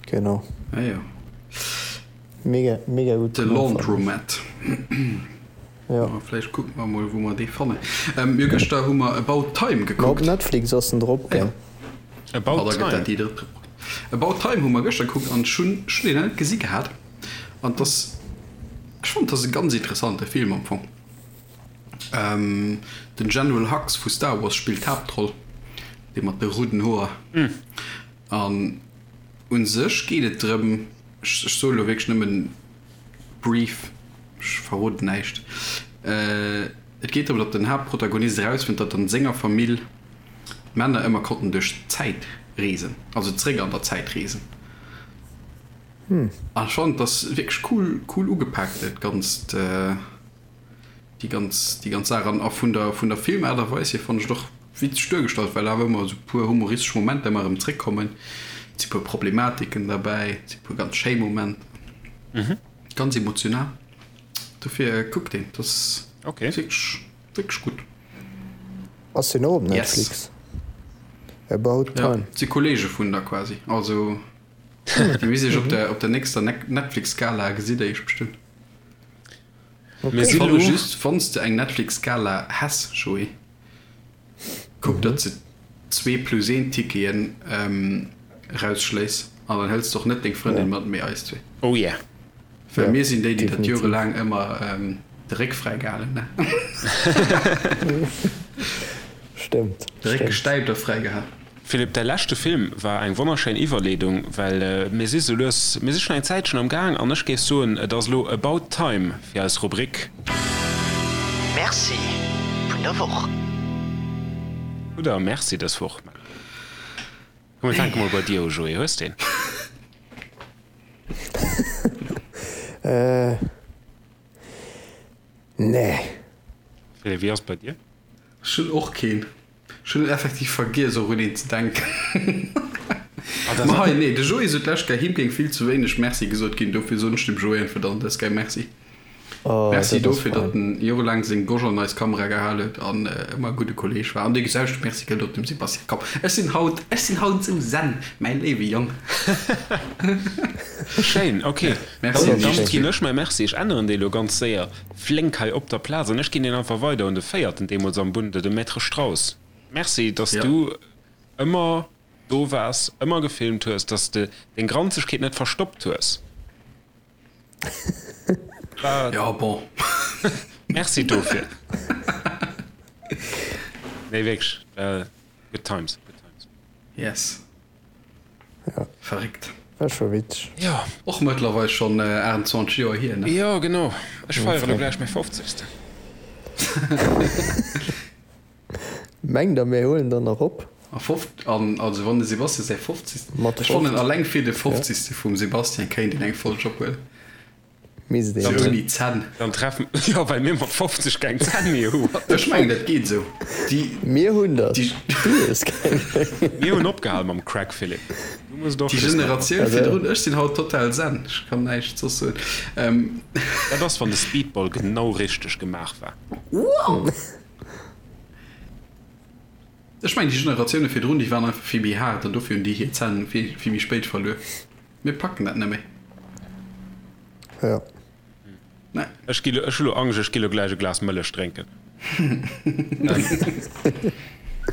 Genau. Ah jo. Mega, mega gutt The gemaach, fannen ech. Laundromat. Jo. Ma vläicht kucke mer emol, wou mer dee fannen. Jo, gëschter hu mer About Time Ma op gekuckt. Netflix ass en drop, Ah jo. gell? About Ah, da gëtt Time. dat déi drëtt. About Time hu mer gëschter gekuckt an ech hunn, ech hunn deen nach net gesi gehat. An 't ass, ech fannen, 't ass e ganz interessante Film am Fong. Den General Hux vu Star Wars spillt d'Haaptroll, dee mat de rouden Hoer. An u sech geet et drëm, ech soe lo wierklech nëmmen brief, ech verroden näischt, et geet drëm, datt den Haaptprotagonist erausfënnt, datt an senger Famill d'Männer ëmmer konnten duerch d'Zäit reesen, also zréck an der Zäit reesen. An ech fannen, et ass wierklech cool, cool ugepaakt dat Ganzt. Déi ganz, déi ganz Saach. An a vun der, vun der Filmaart a Weis hier fannen ech et och witzeg duergestallt, well awer ëmmer esou puer humoristesch Momenter ëmmer erëm zréckkommen. Et si puer Problematiken derbäi, et si puer ganz schéi Momenter. Ganz emotional. Dofir kuckt deen, dat ass Okay. wierklech, wierklech gutt. Ass deen och op Yes. Netflix? About Ja, Time. et si Kollege vun der quasi. Also, déi weess ech op der, op der nächster Netflix-Gala gesitt der iech bestëmmt. Mir si Fanne lo. just, wann s de eng Netflix-Gala häss, Joé, kuck, datt s de zwee plus een Ticketen erausschléiss an dann hëls de och net deng Frëndin mat, mee eis zwee. Oh yeah. Well mir sinn déi, déi dat jorelaang ëmmer de Réck fräi gehalen hunn, ne? Stëmmt. De Réck gestäipt a fräi gehalen. Philippe, däi leschte Film war eng wonnerschéin Iwwerleedung, well mir si sou lues, mir si schonn eng Zäitchen am Gaang an ech géif soen, et ass elo about time fir eis Rubrik. Merci vun der Woch. Oder Merci dës Woch. Komm mir fänke mol bei dir u, Joé, hues de een? Nee. Philippe, wéi ass et bei dir? Ech hunn och keen. Ech hunn effektiv vergiess och un een ze denken. Ma hei, nee, de Joé sot d'lescht Kéier, him géing vill ze wéineg Merci gesot ginn, dofir soen ech dem Joé einfach dann dës Kéier Merci. Oh, Merci dat ass dofir, datt fein. en jorelaang seng Gosch an eis Kamera gehal huet an ëmmer e gudde Kolleeg war. An dee geselwechte Merci gëllt och dem Sebastian. Komm, ech sinn haut, ech sinn haut esou zen, mäi léiwe Jong. Schéin, ok. Merci Dann, un dann iech ginn zwee. ech mäi Merci, ech änneren dee lo ganz séier. Flénk hei op der Plaz an ech ginn deen einfach weider un de véierten deemools am Bunde, de Maître Strauss. Merci, dass Ja. du ëmmer do waars, ëmmer gefilmt hues, dass de deng Granzegkeet net verstoppt hues. War. Ja, bon. Merci dofir. Nee, wierklech, good times, good times. Yes. Ja. Verréckt. War scho witzeg. Jo. Och mëttlerweil schonn 28 Joer hier, ne? Jo, genau. Ech feiere lo gläich mäi Fofzegsten. Mengt der mir huelen der nach op? A fof, an also wann de Sebastian säi Fofzegsten, Mat ech fannen 50. alleng fir de Ja. Fofzegste vum Sebastian kéint een eng Folg ophuelen. Misst Sou een. ouni Zänn. Dann treffen, jo, well mir mat 50 keng Zänn méi hu. What the Ech mengen dat geet esou. Déi, Mir hunn der, déi, du hues keng méi. Mir hunn opgehal mam Crack, Philippe. Du muss et och déi just nach Generatioun Also. virdrun, ech sinn haut total zen, ech kann näischt soss soen. Ähm. Dat ass wann de Speedball genau richteg gemaach war. Wow! Ech mengen déi Generatioune virdrun, déi waren einfach vill méi haart an dofir hunn déi hir Zänn vill, vill méi spéit verluer. Mir packen dat net méi. Jo. Nee. Ech gi ech hu lo Angscht, ech gi lo gläich e Glas Mëllech drénken.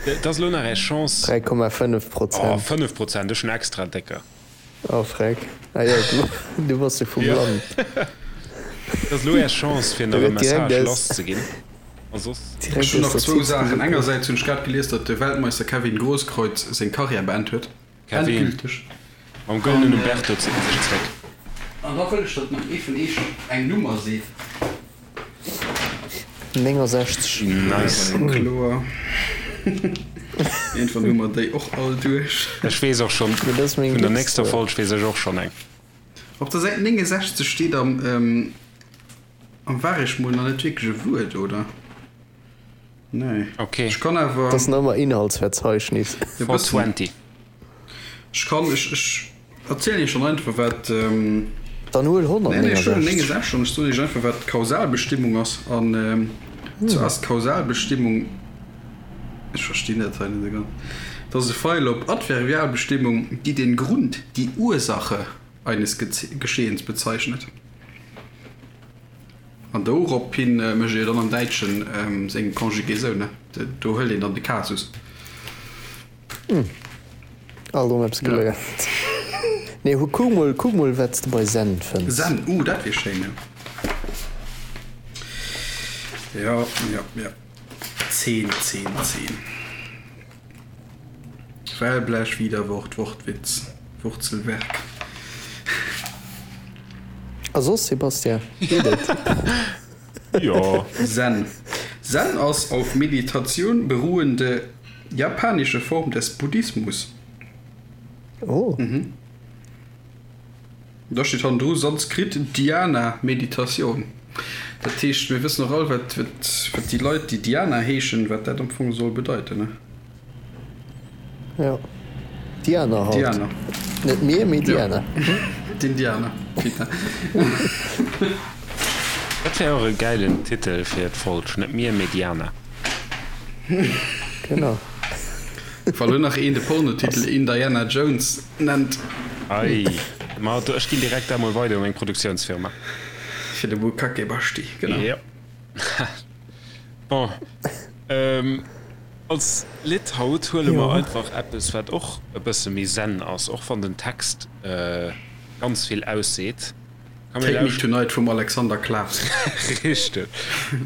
Et ass lo nach är Chance. 3,5 Prozent. Oh, 5 Prozent, ech hunn extra décker. Oh freck. Ah jo, du, du bass jo vum Ja. Land. Et ass lo är Chance fir Da nach e gëtt direkt Message aus, lasszeginn. A soss. direkt Ech hunn aus nach der zwou Ziz Saachen. gesopen. Engersäits hunn ech grad gelies, datt de Weltmeister Kevin Grosskreutz seng Karriär beend huet. Kevin, Endgülteg. mam An gëllenen Umberto zitt en sech zréck. An da wëll ech, datt nach ee vun eech eng Nummer seet. 69. Nice. War jo kloer. Iergendwann hu mer déi och all duerch. Ech weess och schonn, Mee dat ass meng vun der nächster Glückszuel. Folg weess ech och schonn eng. Op der Säit 69 steet am am Waregmol nach net wierklech e Wuert, oder? Nee. Okay. Ech kann awer. Dat ass nach ëmmer Inhaltsverzeichnis. E bëssen. 420. Ech kann, ech, ech erzielen Iech dann einfach, wat. Dann huel Nee, nee, ech huelen 169. 69 an ech soen Iech einfach, wat d'Kausalbestimmung ass. An zwar ass d'Kausalbestimmung, ech verstinn dat hei net esou ganz, dat ass e Feil op Adverbialbestimmung, die den Grund, die Ursache eines Geschehens bezeichnet. An dorophin mécht ee jo dann am Däitschen seng Conjugaison, ne? Do hëlt een dann de Kasus. Alt erëm eppes geléiert. Nee, hu kuck mol, kuck mol wat s de bei Zen fënns. Zen, uh, dat wier schéin, jo. Jo, jo, jo. 10, 10, 10. Wellblech, Widerwort, Wortwitz, Wurzelwerk. A soss, Sébastien, geet et? Jo. Zen. Zen ass auf Meditation beruhende japanische Form des Buddhismus. Oh. Da steet hannendru Sanskrit Dhyana, Meditatioun. Dat heescht, mir wëssen och all, wat, wat, wat déi Leit, déi Diana heeschen, wat dat am Fong soll bedeiten, ne? Jo, Diana halt. Diana. Net mir, mee Diana. Jo, d'Indianer, putain. Dat wär och e gäilen Titel fir d'Folg, Net mir, mee Diana. Genau. Wa lo nach een de Pornotitel Indiana Jones nennt. Ei, ma do, ech ginn direkt dat mol weider u meng Produktiounsfirma. Fir de Bukake Basti, genau. Jo. Bon, als Lidd haut huele mer einfach eppes, wat och e bësse méi zen ass, och wann den Text ganz vill ausseet. Take Me Tonight vum Alexander Klaws. Richteg.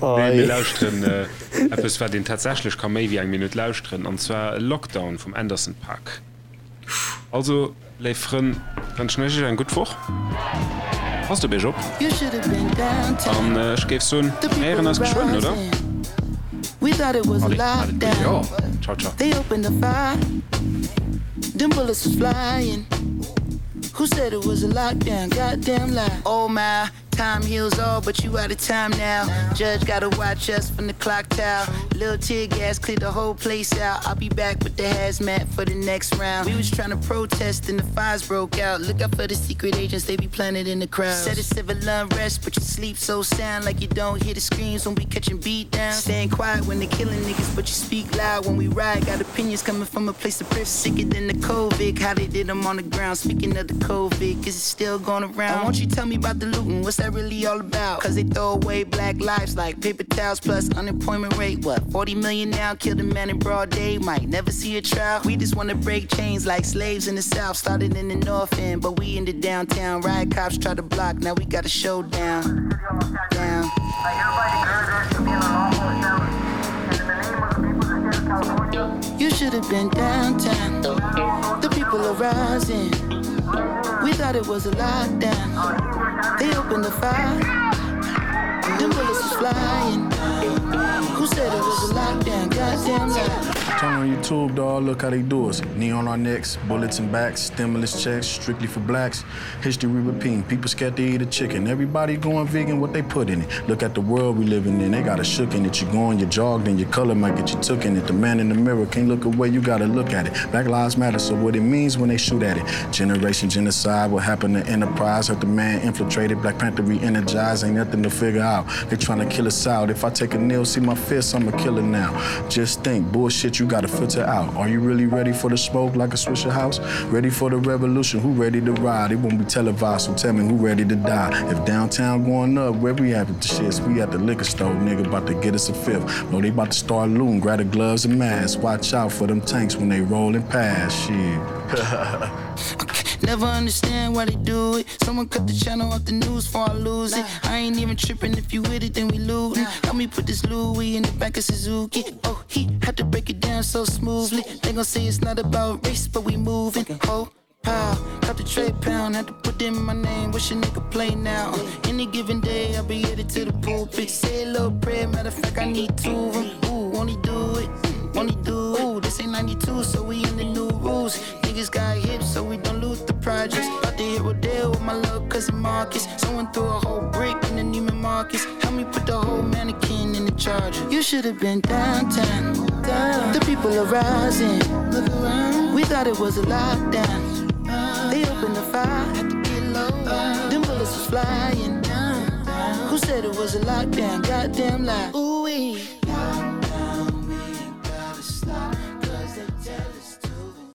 Nee, mir lauschteren eppes, wat een tatsächlech ka méi wéi eng Minutt lauschteren, an zwar Lockdown vum Anderson .Paak. Also, léif Frënn, wënschen ech iech eng gutt Woch. Passt op iech op an ech géif soen, mir héieren eis geschwënn, oder? Allez, maat et gutt. Jo. Ciao, ciao. Who said it was a lockdown? Goddamn lie. Oh my, time heals all, but you out of time now. Judge gotta watch us from the clock tower. Little tear gas cleared the whole place out. I'll be back with the hazmat for the next round. We was trying to protest and the fires broke out. Look out for the secret agents, they be planted in the crowd. Said it's civil unrest, but you sleep so sound like you don't hear the screams when we catching beat down. Staying quiet when they killing niggas, but you speak loud when we ride. Got opinions coming from a place of privilege. Sicker than the COVID, how they did them on the ground. Speaking of the COVID, is it still going around? Won't you tell me about the looting? What's that really all about? Cause they throw away black lives like paper towels plus unemployment rate. What, 40 million now? Killed a man in broad day, might never see a trial. We just wanna break chains like slaves in the south. Started in the north end, but we in the downtown. Riot cops try to block, now we got a showdown. Down. You should have been downtown. The people are rising. We thought it was a lockdown. They opened the fire. Them bullets was flying. Who said it was a lockdown? Goddamn lie. Turn on YouTube, dog. Look how they do us. Knee on our necks, bullets in backs, stimulus checks, strictly for blacks. History repeating. People scared to eat a chicken. Everybody going vegan, what they put in it. Look at the world we living in. They got a shook in it. You go on, you jog, then your color might get you took in it. The man in the mirror can't look away. You gotta look at it. Black lives matter, so what it means when they shoot at it. Generation genocide, what happened to Enterprise? Hurt the man infiltrated. Black Panther re-energized. Ain't nothing to figure out. They trying to kill us out. If I take a nail, see my fist, I'm a killer now. Just think, bullshit you. you gotta filter out. Are you really ready for the smoke like a Swisher house? Ready for the revolution? Who ready to ride? It won't be televised, so tell me who ready to die. If downtown going up, where we at with the shits? We at the liquor store, nigga, about to get us a fifth. No, they about to start looting. Grab the gloves and masks. Watch out for them tanks when they rolling past. Shit. Never understand why they do it. Someone cut the channel off the news before I lose it. I ain't even tripping if you with it, then we looting. Help me put this Louis in the back of Suzuki. Oh, he had to break it down so smoothly. They gon' say it's not about race, but we moving. Oh, pow, got the trade pound, had to put in my name. Wish a nigga play now. Any given day, I'll be headed to the pulpit. Say a little prayer, matter of fact, I need two of them. Ooh, won't he do it? Won't he do it? Ooh, this ain't 92, so we in the new rules. Niggas got hips, so we don't lose the projects. About to hit Rodeo with my little cousin Marcus. Someone threw a whole brick in the Neiman Marcus. Help me put the whole mannequin in the charger. You should have been downtown. Down. The people are rising. Look around. We thought it was a lockdown. They opened the fire. Had to get low. Them bullets was flying. Who said it was a lockdown? Goddamn lie. Ooh wee.